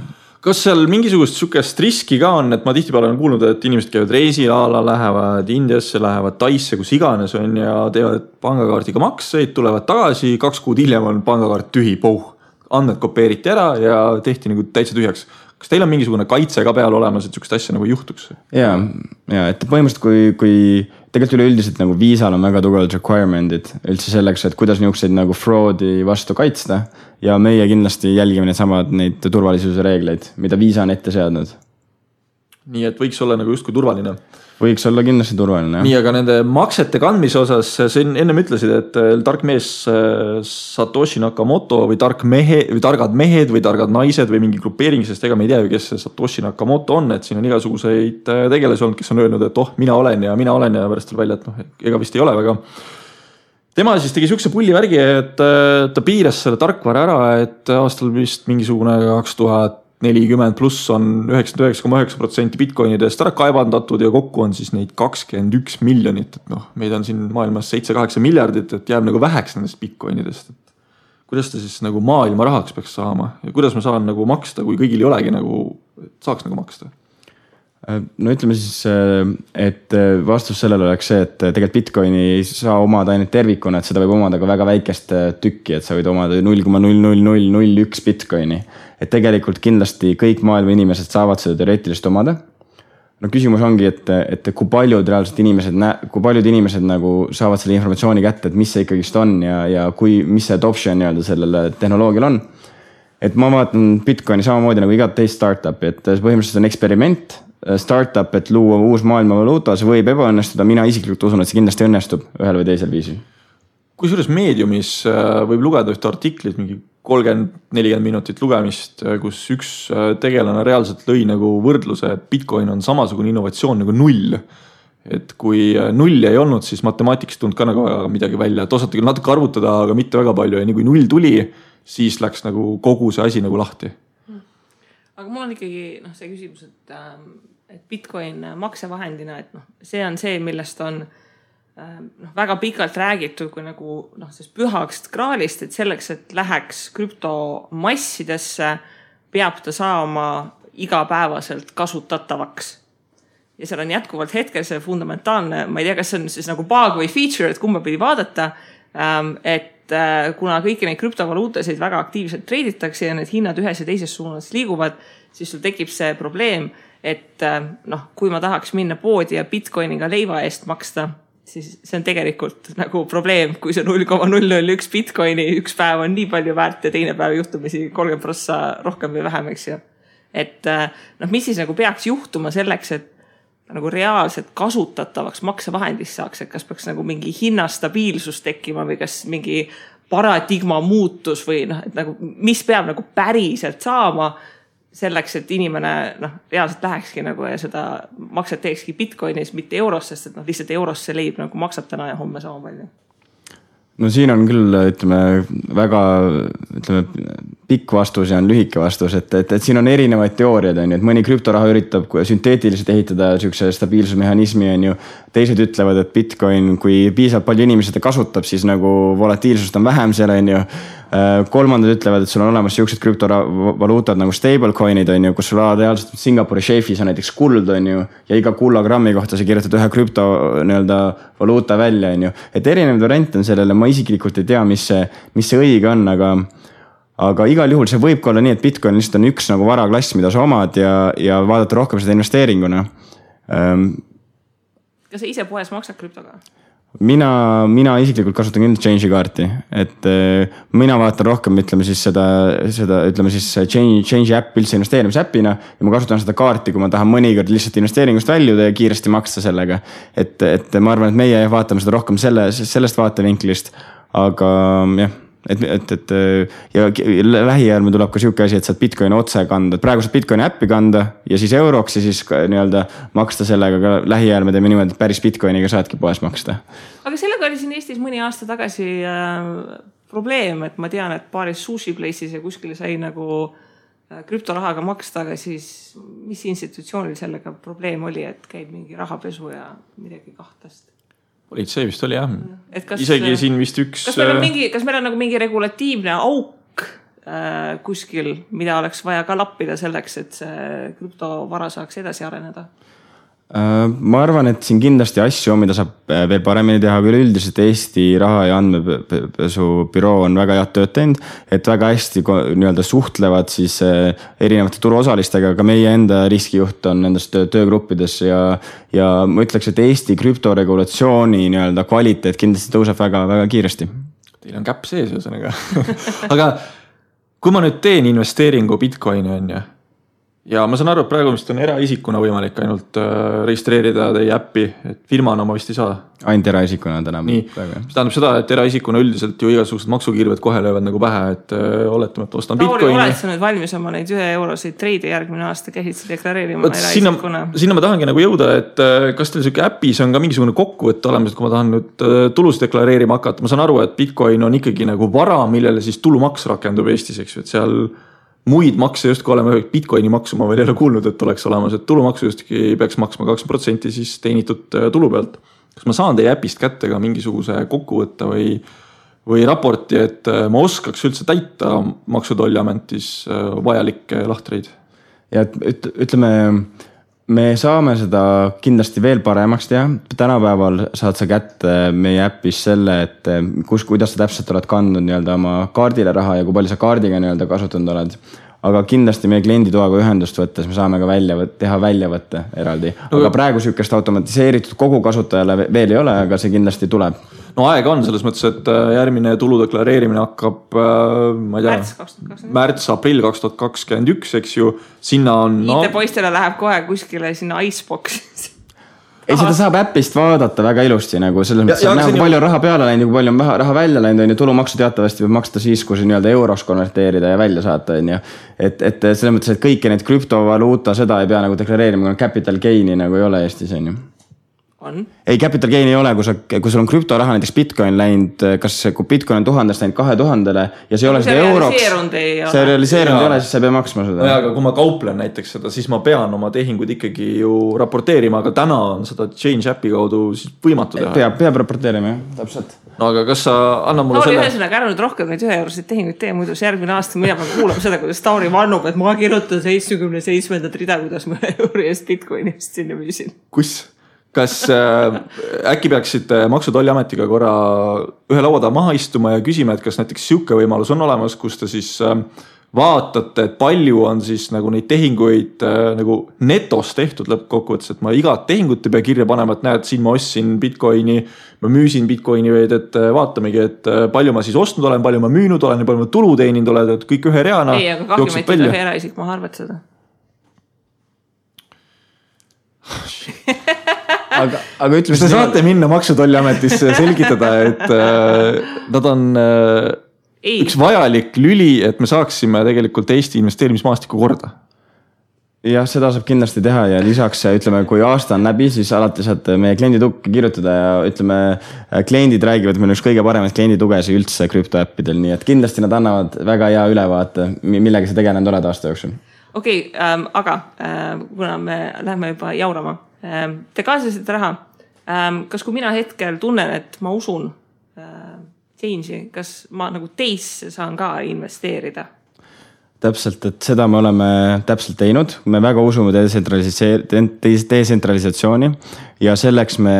[SPEAKER 2] Kas seal mingisugust sukest riski ka on, et ma tihtipeale olen kuulnud, et inimesed käivad reisilaala, lähevad Indiasse, lähevad Taisse, kus iganes on ja teevad pangakaardiga makseid, tulevad tagasi, 2 kuud hiljem on pangakaart tühi, andmed kopeeriti ära ja tehti nagu täitsa tühjaks. Kas teil on mingisugune kaitse ka peal olemas, et sükest asja nagu juhtuks?
[SPEAKER 3] Ja, et põhimõtteliselt kui tegelikult üleüldiselt nagu viisal on väga tugevalt requirement'id üldse selleks, et kuidas niisuguseid nagu fraudi vastu kaitsta ja meie kindlasti jälgime neid turvalisuse reegleid, mida viisa on ette seadnud.
[SPEAKER 2] Nii et võiks olla nagu justkui turvaline?
[SPEAKER 3] Võiks olla kindlasti turvaline.
[SPEAKER 2] Nii, aga nende maksete kandmise osas, sa ennem ütlesid, et tark mees Satoshi Nakamoto või targad mehed või targad naised või mingi grupeering, sest ega me ei tea ju, kes see Satoshi Nakamoto on, et siin on igasuguseid tegelasi olnud, kes on öelnud, et mina olen ja pärast tuleb välja, et ega vist ei ole väga. Tema siis tegi sükse pulli värgi, et ta piiras selle tarkvara ära, et aastal vist mingisugune 2040 pluss on 99,9% bitcoinidest ära kaevandatud ja kokku on siis neid 21 miljonit. Et meid on siin maailmas 7-8 miljardit, et jääb nagu väheks nendest bitcoinidest. Kuidas ta siis nagu maailma rahaks peaks saama ja kuidas ma saan nagu maksta, kui kõigil ei olegi nagu, et saaks nagu maksta?
[SPEAKER 3] No ütleme siis, et vastus sellele oleks see, et tegelikult Bitcoini ei saa omada ainult tervikuna, et seda võib omada ka väga väikest tükki, et sa võid omada 0,00001 Bitcoini. Et tegelikult kindlasti kõik maailma inimesed saavad seda teoreetilist omada. No küsimus ongi, et kui paljud inimesed nagu saavad selle informatsiooni kätte, et mis see ikkagist on ja mis see adoption nii-öelda sellele tehnoloogial on. Et ma vaatan Bitcoini samamoodi nagu igat teist startupi, et põhimõtteliselt on eksperiment, startup, et luua uus maailma valuuta, see võib ebaõnnestuda, mina isiklikult usun, et see kindlasti õnnestub ühel või teisel viisil.
[SPEAKER 2] Kusjuures meediumis võib lugeda ühte artiklit, mingi 30-40 minutit lugemist, kus üks tegelane reaalselt lõi nagu võrdluse, et Bitcoin on samasugune innovatsioon nagu null. Et kui nulli ei olnud, siis matemaatikast tulnud ka nagu midagi välja, et osati küll natuke arvutada, aga mitte väga palju ja nii kui null tuli, siis läks nagu kogu see asi nagu lahti.
[SPEAKER 1] Aga mul on ikkagi see küsimus, et Bitcoin maksevahendina, et see on see, millest on väga pikalt räägitud kui nagu pühaks graalist, et selleks, et läheks krüptomassidesse, peab ta saama igapäevaselt kasutatavaks. Ja seal on jätkuvalt hetkel see fundamentaalne, ma ei tea, kas see on siis nagu bug või feature, et kumba pidi vaadata, et kuna kõiki neid krüptovaluutasid väga aktiivselt treiditakse ja need hinnad ühes ja teises suunas liiguvad, siis sul tekib see probleem, et kui ma tahaks minna poodi ja Bitcoiniga leiva eest maksta, siis see on tegelikult nagu probleem, kui see 0,001 Bitcoini üks päev on nii palju väärt ja teine päev juhtumisi 30% rohkem või vähem, eks ju. Et mis siis nagu peaks juhtuma selleks, et nagu reaalselt kasutatavaks maksevahendist saaks, et kas peaks nagu mingi hinnastabiilsus tekkima või kas mingi paradigma muutus või et nagu, mis peab nagu päriselt saama selleks, et inimene reaalselt lähekski nagu ja seda makset teekski Bitcoinis, mitte euros, sest et lihtsalt euros see leib nagu maksab täna ja homme sama palju.
[SPEAKER 3] No siin on küll, väga pikk vastus ja on lühike vastus, et siin on erinevaid teooriad, et mõni krüptoraha üritab sünteetiliselt ehitada sükse stabiilsusmehhanismi, teised ütlevad, et Bitcoin, kui piisavalt palju inimesed kasutab, siis nagu volatiilsust on vähem seal, kolmandad ütlevad, et sul on olemas siuksed krüptovaluutad nagu stablecoinid, kus sul reaalselt Singapuri šeifis on näiteks kuld, ja iga kullagrammi kohta sa kirjutad ühe krüptovaluuta välja, et erinevad variante on sellele, ma isiklikult ei tea, mis see õige on, aga igal juhul see võib olla nii, et Bitcoin lihtsalt on üks nagu varaklass, mida sa omad ja vaadata rohkem seda investeeringuna.
[SPEAKER 1] Kas sa ise poes maksad krüptoga?
[SPEAKER 3] Mina isiklikult kasutan kindlasti Change'i kaarti, et mina vaatan rohkem, Change'i äpp üldse investeerimisäppina ja ma kasutan seda kaarti, kui ma tahan mõnikord lihtsalt investeeringust väljuda ja kiiresti maksta sellega. Et ma arvan, et meie vaatame seda rohkem sellest vaatevinklist, aga jah, ja lähiajal me tuleb ka siuke asi, et saad Bitcoini otse kanda, et praegu saad Bitcoini äppi kanda ja siis euroks ja siis nii-öelda maksta sellega, aga lähiajal me teeme niimoodi, et päris Bitcoiniga saadki poes maksta.
[SPEAKER 1] Aga sellega oli siin Eestis mõni aasta tagasi probleem, et ma tean, et paaris sushi place'is ja kuskil sai nagu krüptorahaga maksta, aga siis mis institutsioonil sellega probleem oli, et käib mingi rahapesu ja midagi kahtast?
[SPEAKER 2] Politsei vist oli jah. Isegi siin vist üks...
[SPEAKER 1] Kas meil on nagu mingi regulatiivne auk kuskil, mida oleks vaja ka lappida selleks, et see krüptovara saaks edasi areneda?
[SPEAKER 3] Ma arvan, et siin kindlasti asju on, mida saab veel paremini teha, aga üldiselt Eesti raha- ja andmepesu büroo on väga head tööd teinud, et väga hästi nii-öelda suhtlevad siis erinevate turuosalistega, aga meie enda riskijuht on nendest töögruppides ja ma ütleks, et Eesti krüptoregulatsiooni nii-öelda kvaliteet kindlasti tõuseb väga, väga kiiresti.
[SPEAKER 2] Teil on käpp sees ühesõnaga. Aga kui ma nüüd teen investeeringu Bitcoini on ja ma saan aru, et praegu vist on eraisikuna võimalik ainult registreerida teie äppi, et firmana ma vist ei saa.
[SPEAKER 3] Ainult eraisikuna täna.
[SPEAKER 2] Nii, see tähendab seda, et eraisikuna üldiselt ju igasugused maksukirved kohe löövad nagu pähe, et oletame, et ostan Bitcoini.
[SPEAKER 1] Tauri, oled sa nüüd valmis oma neid 1 eurosid treide järgmine aasta käsid sa deklareerima eraisikuna?
[SPEAKER 2] Sinna ma tahangi nagu jõuda, et kas teil selline äpis on ka mingisugune kokkuvõtte olemas, et kui ma tahan nüüd tulus deklareerima hakata, ma saan aru, et Bitcoin on ikkagi nagu vara, millele siis tulumaks rakendub Eestis, eks ju, et seal muid makse justkui olema, Bitcoini maksu ma veel ei ole kuulnud, et oleks olemas, et tulumaksu justkui peaks maksma 20% siis teenitud tulu pealt. Kas ma saan teie äpist kätte ka mingisuguse kokkuvõtte või raporti, et ma oskaks üldse täita Maksu- ja Tolliametis vajalikke lahtreid?
[SPEAKER 3] Ja ütleme, me saame seda kindlasti veel paremaks teha. Tänapäeval saad sa kätte meie äppis selle, et kuidas sa täpselt oled kandnud nii-öelda oma kaardile raha ja kui palju sa kaardiga nii-öelda kasutanud oled. Aga kindlasti meie klienditoaga ühendust võttes me saame ka teha väljavõtte eraldi. Aga praegu sükest automatiseeritud kogu kasutajale veel ei ole, aga see kindlasti tuleb.
[SPEAKER 2] No aega on selles mõttes, et järgmine tulu deklareerimine hakkab, ma ei tea, märts-aprill 2021, eks ju, sinna on...
[SPEAKER 1] IT-poistele läheb kohe kuskile sinna Icebox.
[SPEAKER 3] Ei, seda saab äppist vaadata väga ilusti, nagu selles mõttes, et näha, palju raha peale läinud, kui palju on raha välja läinud, on ju, tulumaksu teatavasti võib maksta siis, kui see nii-öelda euroks konverteerida ja välja saata, on ju. Et selles mõttes, et kõiki neid krüptovaluuta, seda ei pea nagu deklareerima, kui capital gain'i nagu ei ole Eestis, on ju. Ei, capital gain ei ole, kui sul on krüptoraha, näiteks Bitcoin läinud, kui Bitcoin on 1000 läinud 2000-le ja see ei ole seda euroks, see realiseerunud ei ole, siis sa ei pea maksma seda.
[SPEAKER 2] Aga kui ma kauplen näiteks seda, siis ma pean oma tehingud ikkagi ju raporteerima, aga täna on seda Change Appi kaudu võimatu teha.
[SPEAKER 3] Peab raporteerima, jah, täpselt.
[SPEAKER 2] No aga kas sa annab mulle selle...
[SPEAKER 1] ühesõnaga ära nüüd rohkem neid 1 eurosid tehinguid tee, muidu see järgmine aasta mina pean kuulama seda, kuidas Tauri vannub, et ma kirjutan 77. rida, kuidas ma euri eest Bitcoinist sinna müüsin.
[SPEAKER 2] Kus? Kas äkki peaksite Maksu- ja Tolliametiga korra ühe lauada maha istuma ja küsima, et kas näiteks siuke võimalus on olemas, kus te siis vaatate, et palju on siis nagu neid tehinguid nagu netos tehtud lõppkokkuvõttes, et ma igat tehingut ei pea kirja panema, et näed, siin ma ostsin Bitcoini, ma müüsin Bitcoini veid, et vaatamegi, et palju ma siis ostnud olen, palju ma müünud olen ja palju ma tulu teeninud olen, et kõik ühe reana.
[SPEAKER 1] Ei, aga kahjumeid ühe eraisik maha arvatseda.
[SPEAKER 3] Aga ütleme,
[SPEAKER 2] te saate minna Maksu- ja Tolliametisse selgitada, et nad on üks vajalik lüli, et me saaksime tegelikult Eesti investeerimismaastiku korda.
[SPEAKER 3] Jah, seda saab kindlasti teha ja lisaks, ütleme, kui aasta on läbi, siis alati saad meie klienditukke kirjutada ja ütleme, kliendid räägivad, meil üks kõige paremaid klienditugesi üldse krüptoäppidel, nii et kindlasti nad annavad väga hea ülevaate, millega sa tegelenud oled aasta jooksul.
[SPEAKER 1] Okei, aga kuna me lähme juba jaurama, te kaasasite raha. Kas kui mina hetkel tunnen, et ma usun Change'i, kas ma nagu teisse saan ka investeerida?
[SPEAKER 3] Täpselt, et seda me oleme täpselt teinud. Me väga usume detsentralisatsiooni ja selleks me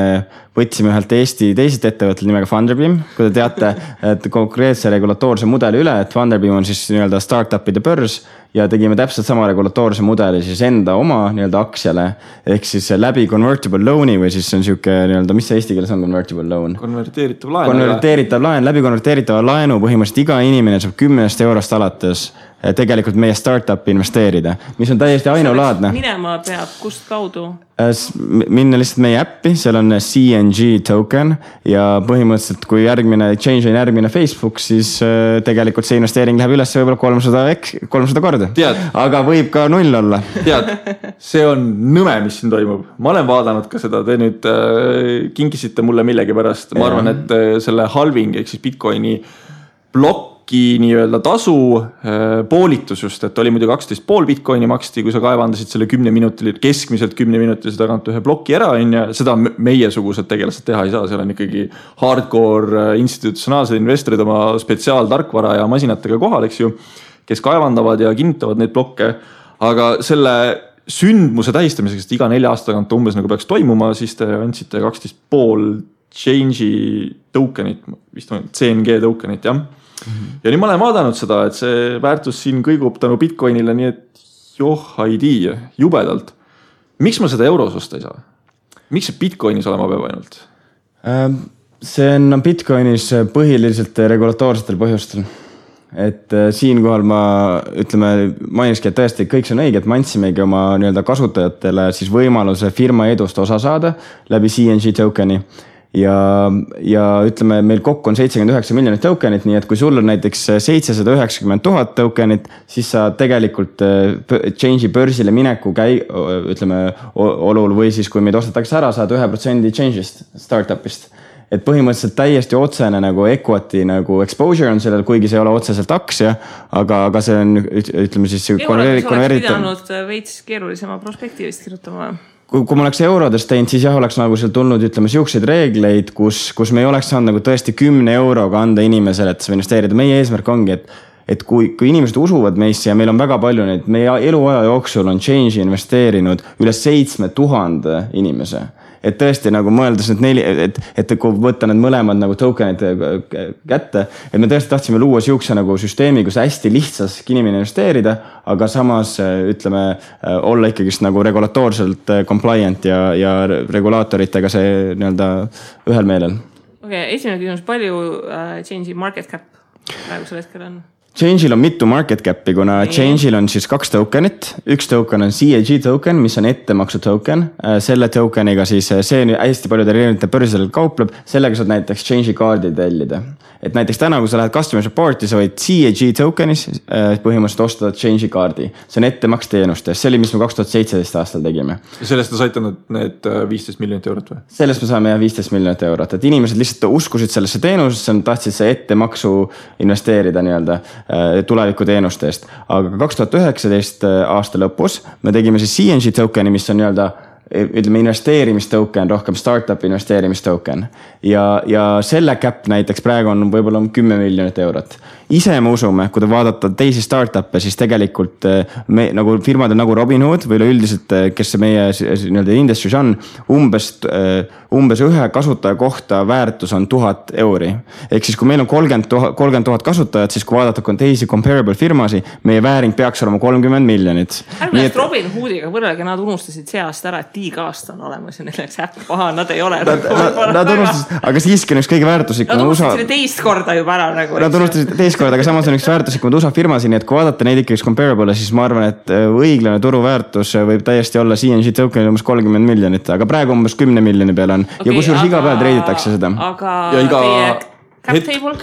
[SPEAKER 3] võtsime ühelt Eesti teisest ettevõttel nimega Funderbeam. Kui te teate, et konkreetse regulatoorse mudeli üle, et Funderbeam on siis nii-öelda startupide börs ja tegime täpselt sama regulatoorse mudeli siis enda oma nii-öelda aktsiale ehk siis läbi convertible loan'i või siis on siuke nii-öelda, mis see eesti keeles on convertible loan? Konverteeritav laen. Läbi konverteeritava laenu põhimõtteliselt iga inimene saab 10 eurost alates tegelikult meie startupi investeerida, mis on täiesti ainulaadne.
[SPEAKER 1] Minema peab kust kaudu?
[SPEAKER 3] Minna lihtsalt meie äppi, seal on CNG token ja põhimõtteliselt kui Change on järgmine Facebook, siis tegelikult see investeering läheb üles võib-olla 300 korda. Aga võib ka 0 olla.
[SPEAKER 2] See on nõme, mis siin toimub. Ma olen vaadanud ka seda, te nüüd kinkisite mulle millegi pärast. Ma arvan, et selle halving, ehk siis Bitcoini blokki nii-öelda tasu poolitus just, et oli muidu 12,5 Bitcoini maksti, kui sa kaevandasid selle 10 minutil, keskmiselt 10 minutilise tagant ühe bloki ära, ja seda meiesugused tegelased teha ei saa, seal on ikkagi hardcore institutsionaalsed investorid oma spetsiaaltarkvara ja masinatega kohal, eks ju, kes kaevandavad ja kinnitavad neid blokke, aga selle sündmuse tähistamiseks, et iga 4 aasta tagant umbes nagu peaks toimuma, siis te andsite 12,5 Change'i tokenit, vist on CNG tokenit, jah. Ja nüüd ma olen vaadanud seda, et see väärtus siin kõigub tänu Bitcoinile, nii et ei tea, jubedalt. Miks ma seda euros osta ei saa? Miks see Bitcoinis olema peab ainult?
[SPEAKER 3] See on Bitcoinis põhiliselt regulatoorsetel põhjustel. Et siinkohal ma mainiski, et tõesti kõik see on õige, et me andsimegi oma nii-öelda kasutajatele siis võimaluse firma edust osa saada läbi CNG tokeni. Ja ütleme, meil kokku on 79 miljonit tokenit, nii et kui sul on näiteks 790 000 tokenit, siis sa tegelikult Change'i börsile mineku olul või siis kui meid ostetakse ära, saad 1% Change'ist, startupist. Et põhimõtteliselt täiesti otsene nagu equity nagu exposure on sellel, kuigi see ei ole otseselt aktsia, aga see on, ütleme siis
[SPEAKER 1] konvertitud. Oleks pidanud veits keerulisema prospektiivist kirjutama.
[SPEAKER 3] Kui ma oleks eurodest teinud, siis jah, oleks nagu seal tulnud, ütleme, siukseid reegleid, kus me ei oleks saanud nagu tõesti 10 euroga anda inimesele, et sa investeerida. Meie eesmärk ongi, et kui inimesed usuvad meisse ja meil on väga palju neid, meie eluaja jooksul on Change'i investeerinud üle 7000 inimese. Et tõesti nagu mõeldes et kui võtta need mõlemad nagu tokenid kätte, et me tõesti tahtsime luua siukse nagu süsteemi, kus hästi lihtsas inimene investeerida, aga samas ütleme olla ikkagist nagu regulatoorselt compliant ja regulaatoritega see nii-öelda ühel meelel.
[SPEAKER 1] Okay, esimene küsimus, palju Change'i market cap praegusel hetkel on?
[SPEAKER 3] Change'il on mitu market cap'i, kuna Change'il on siis 2 tokenit. Üks token on CAG token, mis on ettemaksu token. Selle tokeniga siis see hästi paljudel erinevate börsidel kaupleb. Sellega saad näiteks Change'i kaardi tellida. Et näiteks täna, kui sa lähed customer support'i, sa võid CAG tokenis põhimõtteliselt osta Change'i kaardi. See on ettemaks teenustes. See oli, mis me 2017 aastal tegime.
[SPEAKER 2] Ja sellest on saitanud need 15 miljonit eurot või?
[SPEAKER 3] Sellest me saame 15 miljonit eurot. Et inimesed lihtsalt uskusid sellesse teenusesse, tahtsid see ettemaksu investeerida nii-öelda tulevikuteenuste eest. Aga 2019 aasta lõpus me tegime siis CNG tokeni, mis on nii-öelda ütleme investeerimistoken, rohkem startup investeerimistoken. Ja selle cap näiteks praegu on võib-olla 10 miljonit eurot. Ise me usume, kui te vaadata teisi startup'e, siis tegelikult nagu firmad on nagu Robinhood või üldiselt, kes meie nii-öelda industry's on, umbes ühe kasutaja kohta väärtus on 1000 euri. Ehk siis kui meil on 30 000 kasutajat, siis kui vaadata teisi comparable firmasi, meie vääring peaks olema 30 miljonit.
[SPEAKER 1] Ärmest Robinhoodiga võrrelge, nad unustasid see aasta ära, et tiigaasta on olemas ja neil läks äpp paha, nad ei ole.
[SPEAKER 3] Nad unustasid, aga siiski on üks kõige väärtuslikum.
[SPEAKER 1] Nad unustasid selle teist korda juba ära.
[SPEAKER 3] Nad unustasid teist korda, aga samas on üks väärtuslikumad USA firmasi, nii et kui vaadata neid ikkagi comparable, siis ma arvan, et õiglane turuväärtus võib täiesti olla CNG tokenil umbes 30 miljonit, aga praegu umbes 10 miljoni peale on. Okay, ja kusjuures iga päev treiditakse seda.
[SPEAKER 1] Aga
[SPEAKER 2] ja iga
[SPEAKER 1] cap table?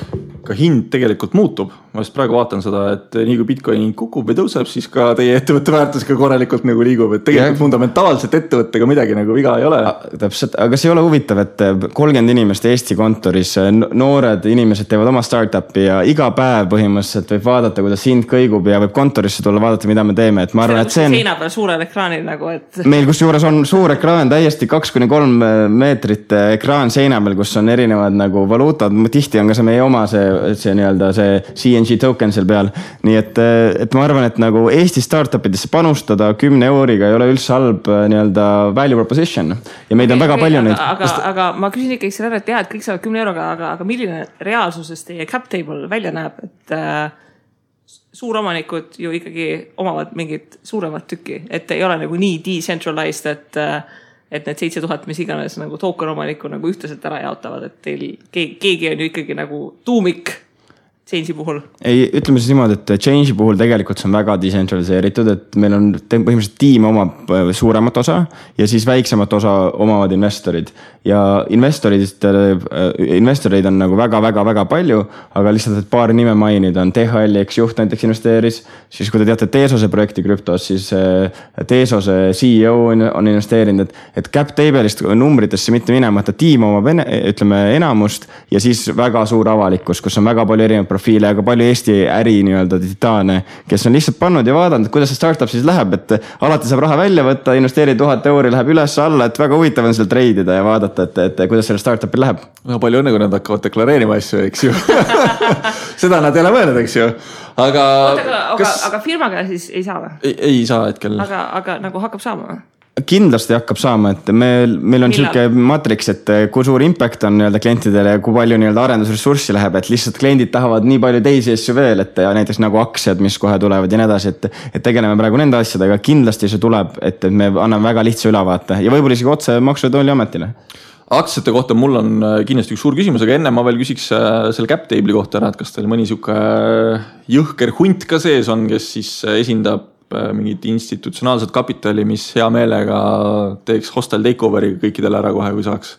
[SPEAKER 2] Ka hind tegelikult muutub. Ma just praegu vaatan seda, et nii kui Bitcoin kukub või tõuseb, siis ka teie ettevõtte väärtus ka korralikult nagu liigub. Et tegelikult fundamentaalselt ettevõttega midagi nagu viga ei ole.
[SPEAKER 3] Täpselt, aga see ei ole huvitav, et 30 inimest Eesti kontoris, noored inimesed teevad oma startupi ja iga päev põhimõtteliselt võib vaadata, kuidas hind kõigub ja võib kontorisse tulla vaadata, mida me teeme. Et ma arvan, et see on
[SPEAKER 1] seina peal suurel ekraanil nagu, et
[SPEAKER 3] meil kus juures on suur ekraan, täiesti 2-3 meetrit ekraan seina peal, kus on erinevad nagu valuutad. Tihti on ka see meie oma see nii-öelda see CNG token seal peal. Nii et ma arvan, et nagu Eesti startupidesse panustada 10 euriga ei ole üldse halb nii-öelda value proposition. Ja meid on väga palju neid.
[SPEAKER 1] Aga ma küsin ikkagi selle ära, et jah, et kõik saavad 10 euroga, aga milline reaalsuses teie cap table välja näeb, et suuromanikud ju ikkagi omavad mingit suuremat tükki, et ei ole nagu nii decentralized, et need 7000, mis iganes nagu token omaniku nagu ühtlaselt ära jaotavad, et teil keegi on ju ikkagi nagu tuumik Change'i puhul?
[SPEAKER 3] Ei, ütleme siis niimoodi, et Change'i puhul tegelikult see on väga decentraliseeritud, et meil on põhimõtteliselt tiim omab suuremat osa ja siis väiksemat osa omavad investorid. Ja investoreid on nagu väga palju, aga lihtsalt, et paar nime mainida on THL, eks juht näiteks investeeris, siis kui te teate Teesose projekti krüptos, siis Teesose CEO on investeerinud, et cap table'ist numbritesse mitte minema, et tiim omab ütleme enamust ja siis väga suur avalikkus, kus on väga palju erinevaid profiile, aga palju Eesti äri nii-öelda titaane, kes on lihtsalt pannud ja vaadanud, kuidas see startup siis läheb, et alati saab raha välja võtta, investeeri 1000 euri, läheb üles alla, et väga huvitav on seal treidida ja vaadata, et kuidas selle startupil läheb.
[SPEAKER 2] No palju õnne, kui nad hakkavad deklareerima asju, eks ju. Seda nad ei ole mõelnud, eks ju.
[SPEAKER 1] Aga firmaga siis ei saa või?
[SPEAKER 2] Ei saa hetkel.
[SPEAKER 1] Aga nagu hakkab saama või?
[SPEAKER 3] Kindlasti hakkab saama, et meil on selline matriks, et kui suur impact on nii-öelda klientidele ja kui palju nii-öelda arendusressurssi läheb, et lihtsalt kliendid tahavad nii palju teisi asju veel, et ja näiteks nagu aktsiad, mis kohe tulevad ja nii edasi, et tegeleme praegu nende asjadega, kindlasti see tuleb, et me anname väga lihtsa ülevaate ja võib-olla isegi otse Maksu- ja Tolliametile.
[SPEAKER 2] Aktsiate kohta mul on kindlasti üks suur küsimus, aga enne ma veel küsiks selle cap table'i kohta ära, et kas teil mõni siuke jõhker hunt ka sees on, kes siis esindab mingit institutsionaalset kapitali, mis hea meelega teeks hostel takeoveri kõikidele ära kohe, kui saaks?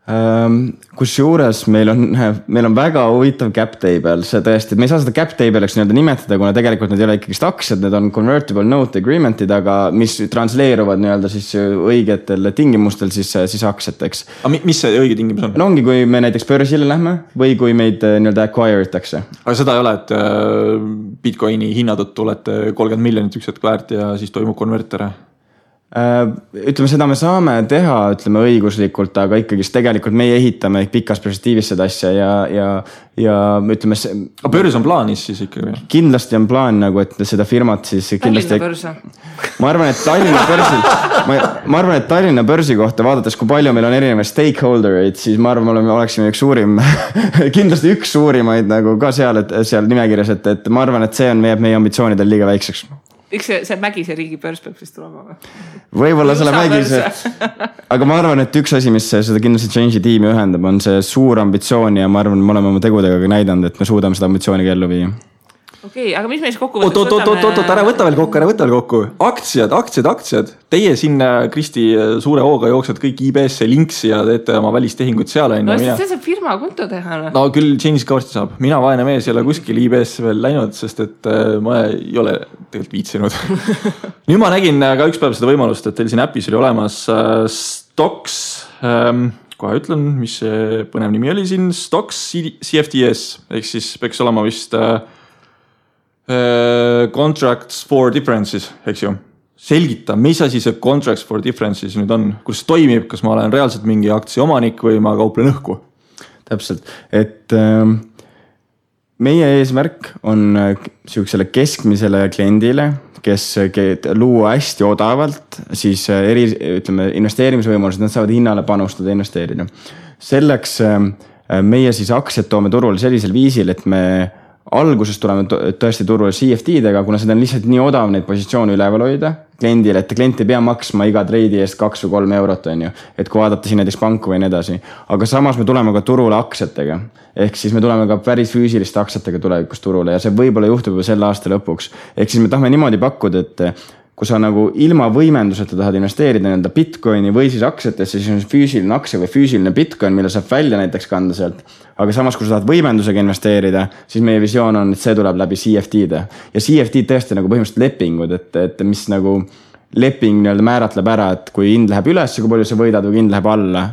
[SPEAKER 3] Kus juures meil on väga huvitav cap table, see tõesti, me ei saa seda cap table'iks nii-öelda nimetada, kuna tegelikult need ei ole ikkagi aktsiad, need on convertible note agreement'id, aga mis transleeruvad nii-öelda siis õigetel tingimustel siis aktsiateks.
[SPEAKER 2] Aga mis see õige tingimus on?
[SPEAKER 3] No ongi, kui me näiteks börsile lähme või kui meid nii-öelda acquire itakse.
[SPEAKER 2] Aga seda ei ole, et Bitcoini hinna tõttu olete 30 miljonit üks hetk väärt ja siis toimub konvertere?
[SPEAKER 3] Ütleme, seda me saame teha, ütleme õiguslikult, aga ikkagi tegelikult meie ehitame pikas perspektiivis seda asja ja ütleme...
[SPEAKER 2] Aga börs on plaanis siis ikkagi?
[SPEAKER 3] Kindlasti on plaan nagu, et seda firmat siis kindlasti...
[SPEAKER 1] Tallinna börsa.
[SPEAKER 3] Ma arvan, et Tallinna börsi kohta vaadates, kui palju meil on erinevaid stakeholdereid, siis ma arvan, me oleksime üks suurim, kindlasti üks suurimaid nagu ka seal nimekirjas, et ma arvan, et see on meie ambitsioonidel liiga väikseks.
[SPEAKER 1] Üks see Mägise riigi börs peab siis tulema või?
[SPEAKER 3] Võib-olla selle Mägise, aga ma arvan, et üks asi, mis seda kindlasti Change'i tiimi ühendab, on see suur ambitsioon ja ma arvan, me oleme oma tegudega ka näidanud, et me suudame seda ambitsiooni ellu viia.
[SPEAKER 1] Okei, aga mis me siis kokku võtame?
[SPEAKER 2] Oot, ära võta veel kokku. Aktsiad. Teie siin, Kristi, suure hooga jooksed kõik IBS-e linksi ja teete oma välistehingut seal.
[SPEAKER 1] No see saab firma konto teha.
[SPEAKER 2] No küll Change'is ka varsti saab. Mina vaene mees ei ole kuskil IBS-e veel läinud, sest et ma ei ole tegelikult viitsinud. Nüüd ma nägin ka üks päev seda võimalust, et teil siin äpis oli olemas Stocks, kohe ütlen, mis see põnev nimi oli siin, Stocks CFDS, ehk siis peaks olema vist... Contracts for differences, eks ju. Selgita, mis asi see Contracts for differences nüüd on? Kus toimib, kas ma olen reaalselt mingi aktsia omanik või ma kauplen õhku?
[SPEAKER 3] Täpselt, et meie eesmärk on sihukesele keskmisele kliendile, kes luua hästi odavalt, siis ütleme, investeerimisvõimalused, nad saavad hinnale panustada ja investeerida. Selleks meie siis aktsiad toome turule sellisel viisil, et me alguses tuleme tõesti turule CFD-dega, kuna seda on lihtsalt nii odav neid positsioone üleval hoida kliendile, et klient ei pea maksma iga treidi eest 2 või 3 eurot, on ju. Et kui vaadata siin näiteks panku või nii edasi. Aga samas me tuleme ka turule aktsiatega. Ehk siis me tuleme ka päris füüsiliste aktsiatega tulevikus turule ja see võib-olla juhtub juba selle aasta lõpuks. Ehk siis me tahame niimoodi pakkuda, et kui sa nagu ilma võimenduseta tahad investeerida nende Bitcoini või siis aktsiatesse, siis on füüsiline aktsia või füüsiline Bitcoin, mille saab välja näiteks kanda sealt. Aga samas, kui sa tahad võimendusega investeerida, siis meie visioon on, et see tuleb läbi CFD-de. Ja CFD tõesti nagu põhimõtteliselt lepingud, et mis nagu leping määratleb ära, et kui hind läheb üles, kui palju sa võidad või hind läheb alla,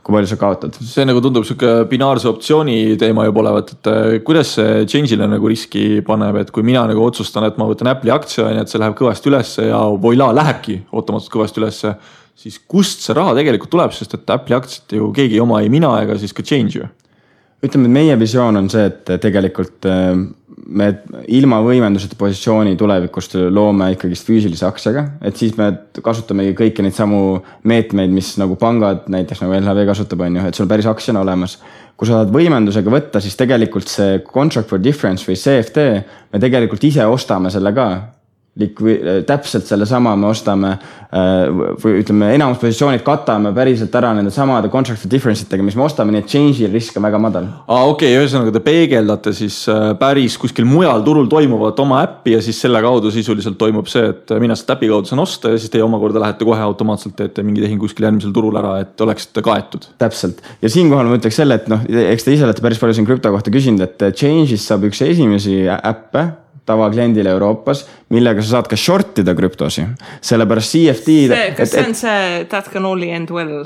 [SPEAKER 3] kui palju sa kaotad.
[SPEAKER 2] See nagu tundub siuke binaarse optsiooni teema juba olevat, et kuidas see Change'ile nagu riski paneb, et kui mina nagu otsustan, et ma võtan Apple'i aktsia, et see läheb kõvasti ülesse ja voila, lähebki ootamatult kõvasti ülesse, siis kust see raha tegelikult tuleb, sest et Apple'i aktsiat ju keegi oma ei mina ega siis ka Change ju.
[SPEAKER 3] Ütleme, et meie visioon on see, et tegelikult me ilma võimenduseta positsiooni tulevikust loome ikkagi füüsilise aktsiaga, et siis me kasutamegi kõiki neid samu meetmeid, mis nagu pangad näiteks nagu LHV kasutab, on ju, et sul päris aktsiana olemas. Kui sa saad võimendusega võtta, siis tegelikult see Contract for Difference või CFD, me tegelikult ise ostame selle ka. Täpselt selle sama me ostame või ütleme, enamus positsioonid katame päriselt ära nende samade Contract for Difference'itega, mis me ostame, nii et Change'il risk on väga madal.
[SPEAKER 2] Okei, ühesõnaga te peegeldate siis päris kuskil mujal turul toimuvat oma äppi ja siis selle kaudu sisuliselt toimub see, et mina seda äpi kaudu saan osta ja siis teie omakorda lähete kohe automaatselt teete mingi tehing kuskil järgmisel turul ära, et oleksite kaetud.
[SPEAKER 3] Täpselt. Ja siinkohal ma ütleks selle, et eks te ise olete päris palju siin krüpto kohta küsinud, et Change'is saab üks esimesi äppe tavakliendile Euroopas, millega sa saad ka shortida krüptosi. Sellepärast CFD...
[SPEAKER 1] Kas see on see that can only end well?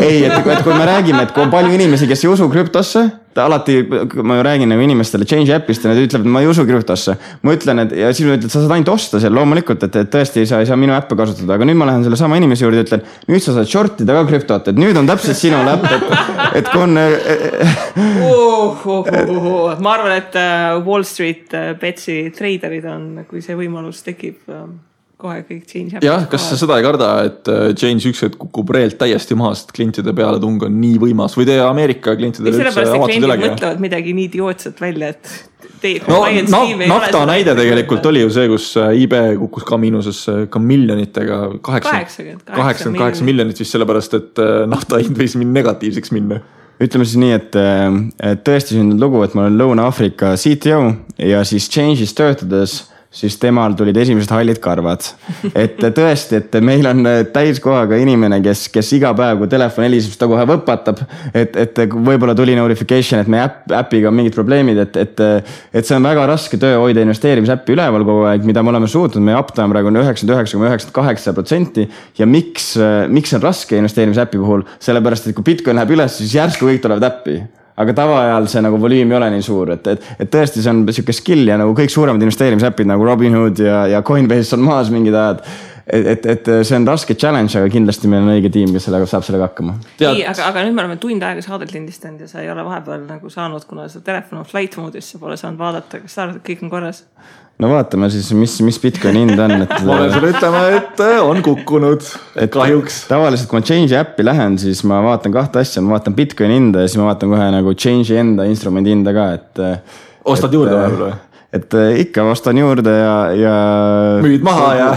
[SPEAKER 3] Ei, et kui me räägime, et kui on palju inimesi, kes ei usu krüptosse, alati ma ju räägin nagu inimestele Change appist ja nad ütlevad, et ma ei usu krüptosse. Ma ütlen, et ja siis ma ütlen, et sa saad ainult osta seal loomulikult, et tõesti ei saa minu äppe kasutada, aga nüüd ma lähen selle sama inimese juurde ja ütlen, nüüd sa saad shortida ka krüptot, et nüüd on täpselt sinu äpp, et kui on...
[SPEAKER 1] Ma arvan, et Wall Street Betsi traderid on, kui see võimalus tekib... kohe kõik Change
[SPEAKER 2] jah, kas sa seda ei karda, et Change üks hetk kukub reelt täiesti maha, sest klientide peale tung on nii võimas või teie Ameerika klientidele
[SPEAKER 1] üldse avatud üle? Kliendid mõtlevad midagi nii idiootset välja, et
[SPEAKER 2] nafta näide tegelikult oli ju see, kus eBay kukkus ka miinuses ka miljonitega 88 miljonit vist sellepärast, et nafta hind võis negatiivseks minna.
[SPEAKER 3] Ütleme siis nii, et tõesti sündinud lugu, et ma olen Lõuna-Aafrika CTO ja siis Change'is töötades siis temal tulid esimesed hallid karvad. Et tõesti, et meil on täiskohaga inimene, kes iga päev, kui telefon heliseb, ta kohe võpatab, et võib-olla tuli notification, et meie äpiga on mingid probleemid, et see on väga raske töö hoida investeerimisäppi üleval kogu aeg, mida me oleme suutnud, meie uptime praegu on 99,98% ja miks on raske investeerimisäppi puhul, sellepärast, et kui Bitcoin läheb üles, siis järsku kõik tulevad äppi. Aga tavaajal see nagu volüüm ei ole nii suur, et tõesti see on siuke skill ja nagu kõik suuremad investeerimisäpid nagu Robinhood ja Coinbase on maas mingid ajad. et see on raske challenge, aga kindlasti meil on õige tiim, kes saab sellega hakkama.
[SPEAKER 1] Nii, aga nüüd me oleme tund aega saadet lindistanud ja sa ei ole vahepeal nagu saanud, kuna sa telefon on flight moodis, sa pole saanud vaadata, kas sa arvad, et kõik on korras?
[SPEAKER 3] No vaatame siis, mis Bitcoini hind on.
[SPEAKER 2] Ma olen sulle ütlema, et on kukkunud, kahjuks.
[SPEAKER 3] Tavaliselt, kui ma Change'i äppi lähen, siis ma vaatan kahte asja. Ma vaatan Bitcoini hinda ja siis ma vaatan kohe nagu Change'i enda instrumendi hinda ka.
[SPEAKER 2] Ostad juurde või?
[SPEAKER 3] Et ikka ostan juurde ja
[SPEAKER 2] müüd maha ja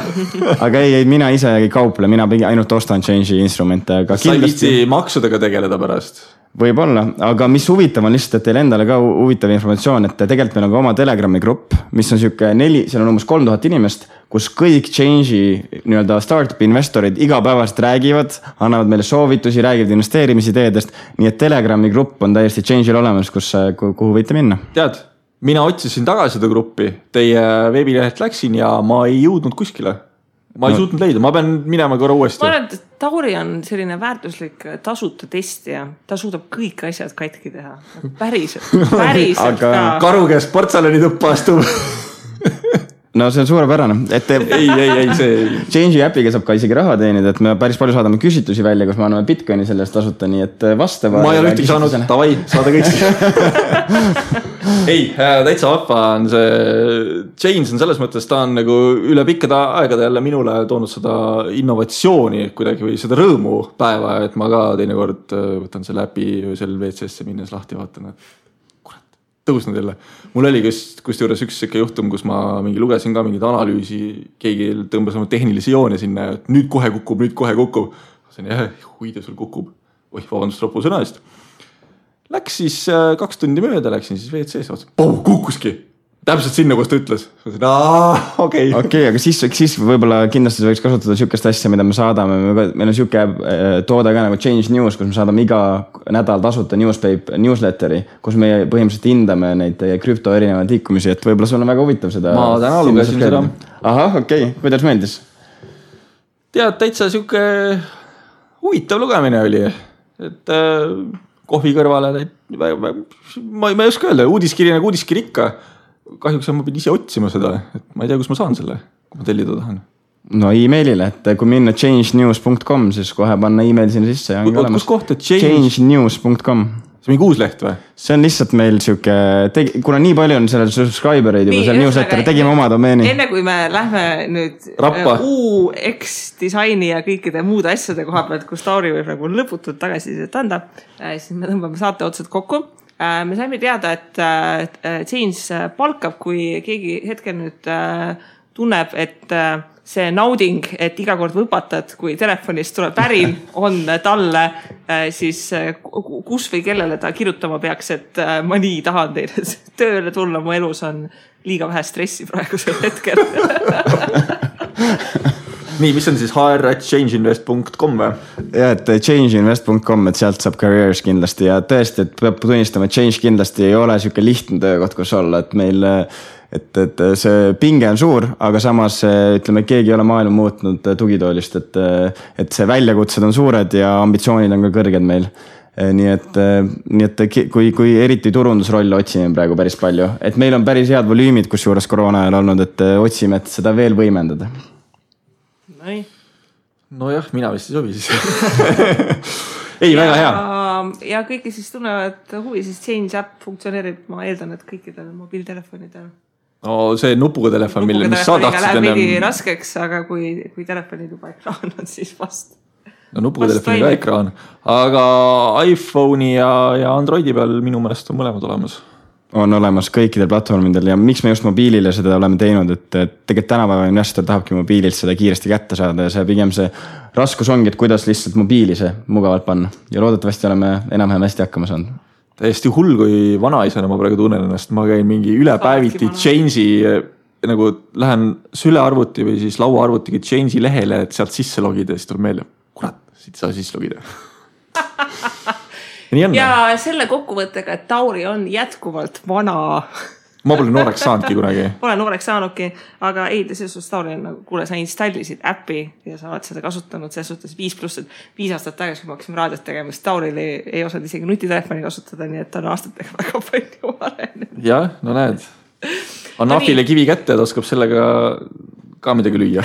[SPEAKER 3] aga ei, mina ise ei kauple, mina ainult ostan Change'i instrumente.
[SPEAKER 2] Sa ei viitsi maksudega tegeleda pärast?
[SPEAKER 3] Võib-olla, aga mis huvitav on lihtsalt, et teil endale ka huvitav informatsioon, et tegelikult meil on ka oma Telegrami grupp, mis on siuke 4, seal on umbes 3000 inimest, kus kõik Change'i nii-öelda startup investorid igapäevast räägivad, annavad meile soovitusi, räägivad investeerimisideedest, nii et Telegrami grupp on täiesti Change'il olemas, kuhu võite minna.
[SPEAKER 2] Tead, mina otsisin tagasi seda gruppi, teie veebilehelt läksin ja ma ei jõudnud kuskile. Ma ei suutnud leida, ma pean minema korra uuesti.
[SPEAKER 1] Ma arvan, et Tauri on selline väärtuslik tasuta testija. Ta suudab kõik asjad katki teha. Päriselt
[SPEAKER 2] aga ka. Karu käest portsalani tuppa astub.
[SPEAKER 3] No see on suurepärane.
[SPEAKER 2] Ei, see...
[SPEAKER 3] Change'i äpiga saab ka isegi raha teenida, et me päris palju saadame küsitusi välja, kus me anname Bitcoini sellest tasuta, nii et vastava...
[SPEAKER 2] Ma ei ole ühtegi saanud, tavai, saada kõik. Ei, täitsa vappa on see... Change on selles mõttes, ta on nagu üle pikkade aegade jälle minule toonud seda innovatsiooni kuidagi või seda rõõmu päeva, et ma ka teinekord võtan selle äpi öösel WC-sse minnes lahti ja vaatan, et tõusnud jälle. Mul oli kusjuures üks siuke juhtum, kus ma lugesin ka mingit analüüsi, keegi tõmbas oma tehnilisi joone sinna, et nüüd kohe kukub. See on huide sul kukub. Vabandust ropu sõna eest. Läks siis 2 tundi mööda, läksin siis WC-sse, kukkuski. Täpselt sinna, kus ta ütles. Okei,
[SPEAKER 3] aga siis võib-olla kindlasti võiks kasutada siukest asja, mida me saadame. Meil on siuke toode ka nagu Change News, kus me saadame iga nädal tasuta newsletteri, kus me põhimõtteliselt hindame neid krüpto erinevaid liikumisi, et võib-olla sul on väga huvitav seda.
[SPEAKER 2] Ma täna lugesin seda.
[SPEAKER 3] Ahah, okei. Kuidas meeldis?
[SPEAKER 2] Tead, täitsa siuke huvitav lugemine oli. Et kohvi kõrvale, ma ei oska öelda, uudiskiri nagu uudiskiri ikka. Kahjuks ma pidin ise otsima seda, et ma ei tea, kus ma saan selle, kui ma tellida tahan.
[SPEAKER 3] No e-mailile, et kui minna changenews.com, siis kohe panna e-mail sinna sisse.
[SPEAKER 2] Kus koht, et
[SPEAKER 3] changenews.com.
[SPEAKER 2] See on mingi uus leht või?
[SPEAKER 3] See on lihtsalt meil siuke, kuna nii palju on sellel subscribereid juba seal newsletteri, tegime oma domeeni.
[SPEAKER 1] Enne kui me lähme nüüd UX disaini ja kõikide muude asjade koha pealt, kus Tauri võib nagu lõputult tagasisidet anda, siis me tõmbame saate otsad kokku. Me saime teada, et Change palkab, kui keegi hetkel nüüd tunneb, et see nauding, et iga kord võpatad, kui telefonist tuleb pärin, on talle siis kus või kellele ta kirjutama peaks, et ma nii tahan teile tööle tulla, mu elus on liiga vähe stressi praegusel hetkel.
[SPEAKER 2] Nii, mis on siis hr@changeinvest.com või?
[SPEAKER 3] Ja, et changeinvest.com, et sealt saab careers kindlasti ja tõesti, et peab tunnistama, et Change kindlasti ei ole siuke lihtne töökoht, kus olla, et meil, et see pinge on suur, aga samas ütleme, keegi ei ole maailma muutnud tugitoolist, et see väljakutsed on suured ja ambitsioonid on ka kõrged meil. Nii et kui eriti turundusrolle otsime praegu päris palju, et meil on päris head volüümid, kus juures koroona ajal olnud, et otsime, et seda veel võimendada.
[SPEAKER 2] No jah, mina vist ei sobi siis. Ei, väga hea.
[SPEAKER 1] Ja kõiki siis tunnevad huvi, siis Change App funktsioneerib, ma eeldan, et kõikidel mobiiltelefonidel.
[SPEAKER 2] No see nupuga telefon, mis sa tahtsid
[SPEAKER 1] läheb mingi raskeks, aga kui telefonid juba ekraan on, siis vast.
[SPEAKER 2] No nupuga telefoni ka ekraan, aga iPhone'i ja Androidi peal minu meelest on mõlemad olemas.
[SPEAKER 3] On olemas kõikidel platvormidel ja miks me just mobiilile seda oleme teinud, et tegelikult tänapäeva investor tahabki mobiililt seda kiiresti kätte saada ja see pigem see raskus ongi, et kuidas lihtsalt mobiili see mugavalt panna ja loodetavasti oleme enam-vähem hästi hakkama saanud.
[SPEAKER 2] Täiesti hull, kui vanaisana ma praegu tunnen ennast, ma käin mingi ülepäeviti Change'i, nagu lähen sülearvuti või siis lauaarvutiga Change'i lehele, et sealt sisse logida ja siis tuleb meelde, kurat, siit saa sisse logida.
[SPEAKER 1] Ja selle kokkuvõttega, et Tauri on jätkuvalt vana.
[SPEAKER 2] Ma pole nooreks saanudki kunagi.
[SPEAKER 1] Pole nooreks saanudki, aga ei, selles suhtes Tauri on nagu, kuule, sa installisid äppi ja sa oled seda kasutanud, selles suhtes 5+, et 5 aastat tagasi, kui ma hakkasime raadiot tegema, siis Tauril ei osanud isegi nutitelefoni kasutada, nii et ta on aastatega väga palju arenenud.
[SPEAKER 2] Jah, no näed. On Nafile kivi kätte, et oskab sellega ka midagi lüüa.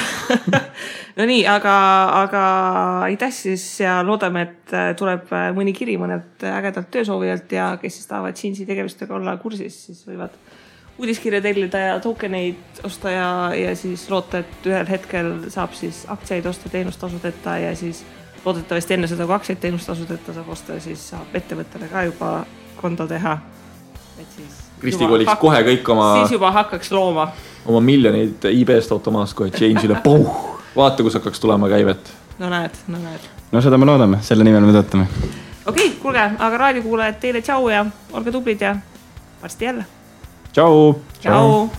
[SPEAKER 1] No nii, aga aitäh siis ja loodame, et tuleb mõni kiri mõnelt ägedalt töösoovijalt ja kes siis tahavad Change'i tegevustega olla kursis, siis võivad uudiskirja tellida ja tokeneid osta ja siis loota, et ühel hetkel saab siis aktsiaid osta teenustasudeta ja siis loodetavasti enne seda, kui aktsiaid teenustasudeta saab osta, siis saab ettevõttele ka juba konto teha. Et siis
[SPEAKER 2] Kristi koliks kohe kõik
[SPEAKER 1] siis juba hakkaks looma.
[SPEAKER 2] Oma miljoneid eBay'st automaast kohe Change'ile. Vaata, kus hakkaks tulema käivet.
[SPEAKER 1] No näed.
[SPEAKER 3] No seda me loodame, selle nimel me töötame.
[SPEAKER 1] Okei, kuulge, aga raadiokuulajad teile tšau ja olge tublid ja varsti jälle.
[SPEAKER 3] Tšau!
[SPEAKER 1] Tšau!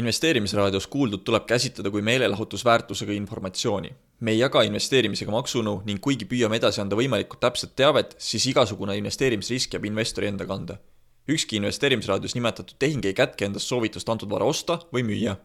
[SPEAKER 4] Investeerimisraadios kuuldud tuleb käsitleda kui meelelahutusväärtusega informatsiooni. Me ei jaga investeerimisega maksunu ning kuigi püüame edasi anda võimalikult täpset teavet, siis igasugune investeerimisrisk jääb investori enda kanda. Ükski investeerimisraadios nimetatud tehing ei kätke endast soovitust antud vara osta või müüa.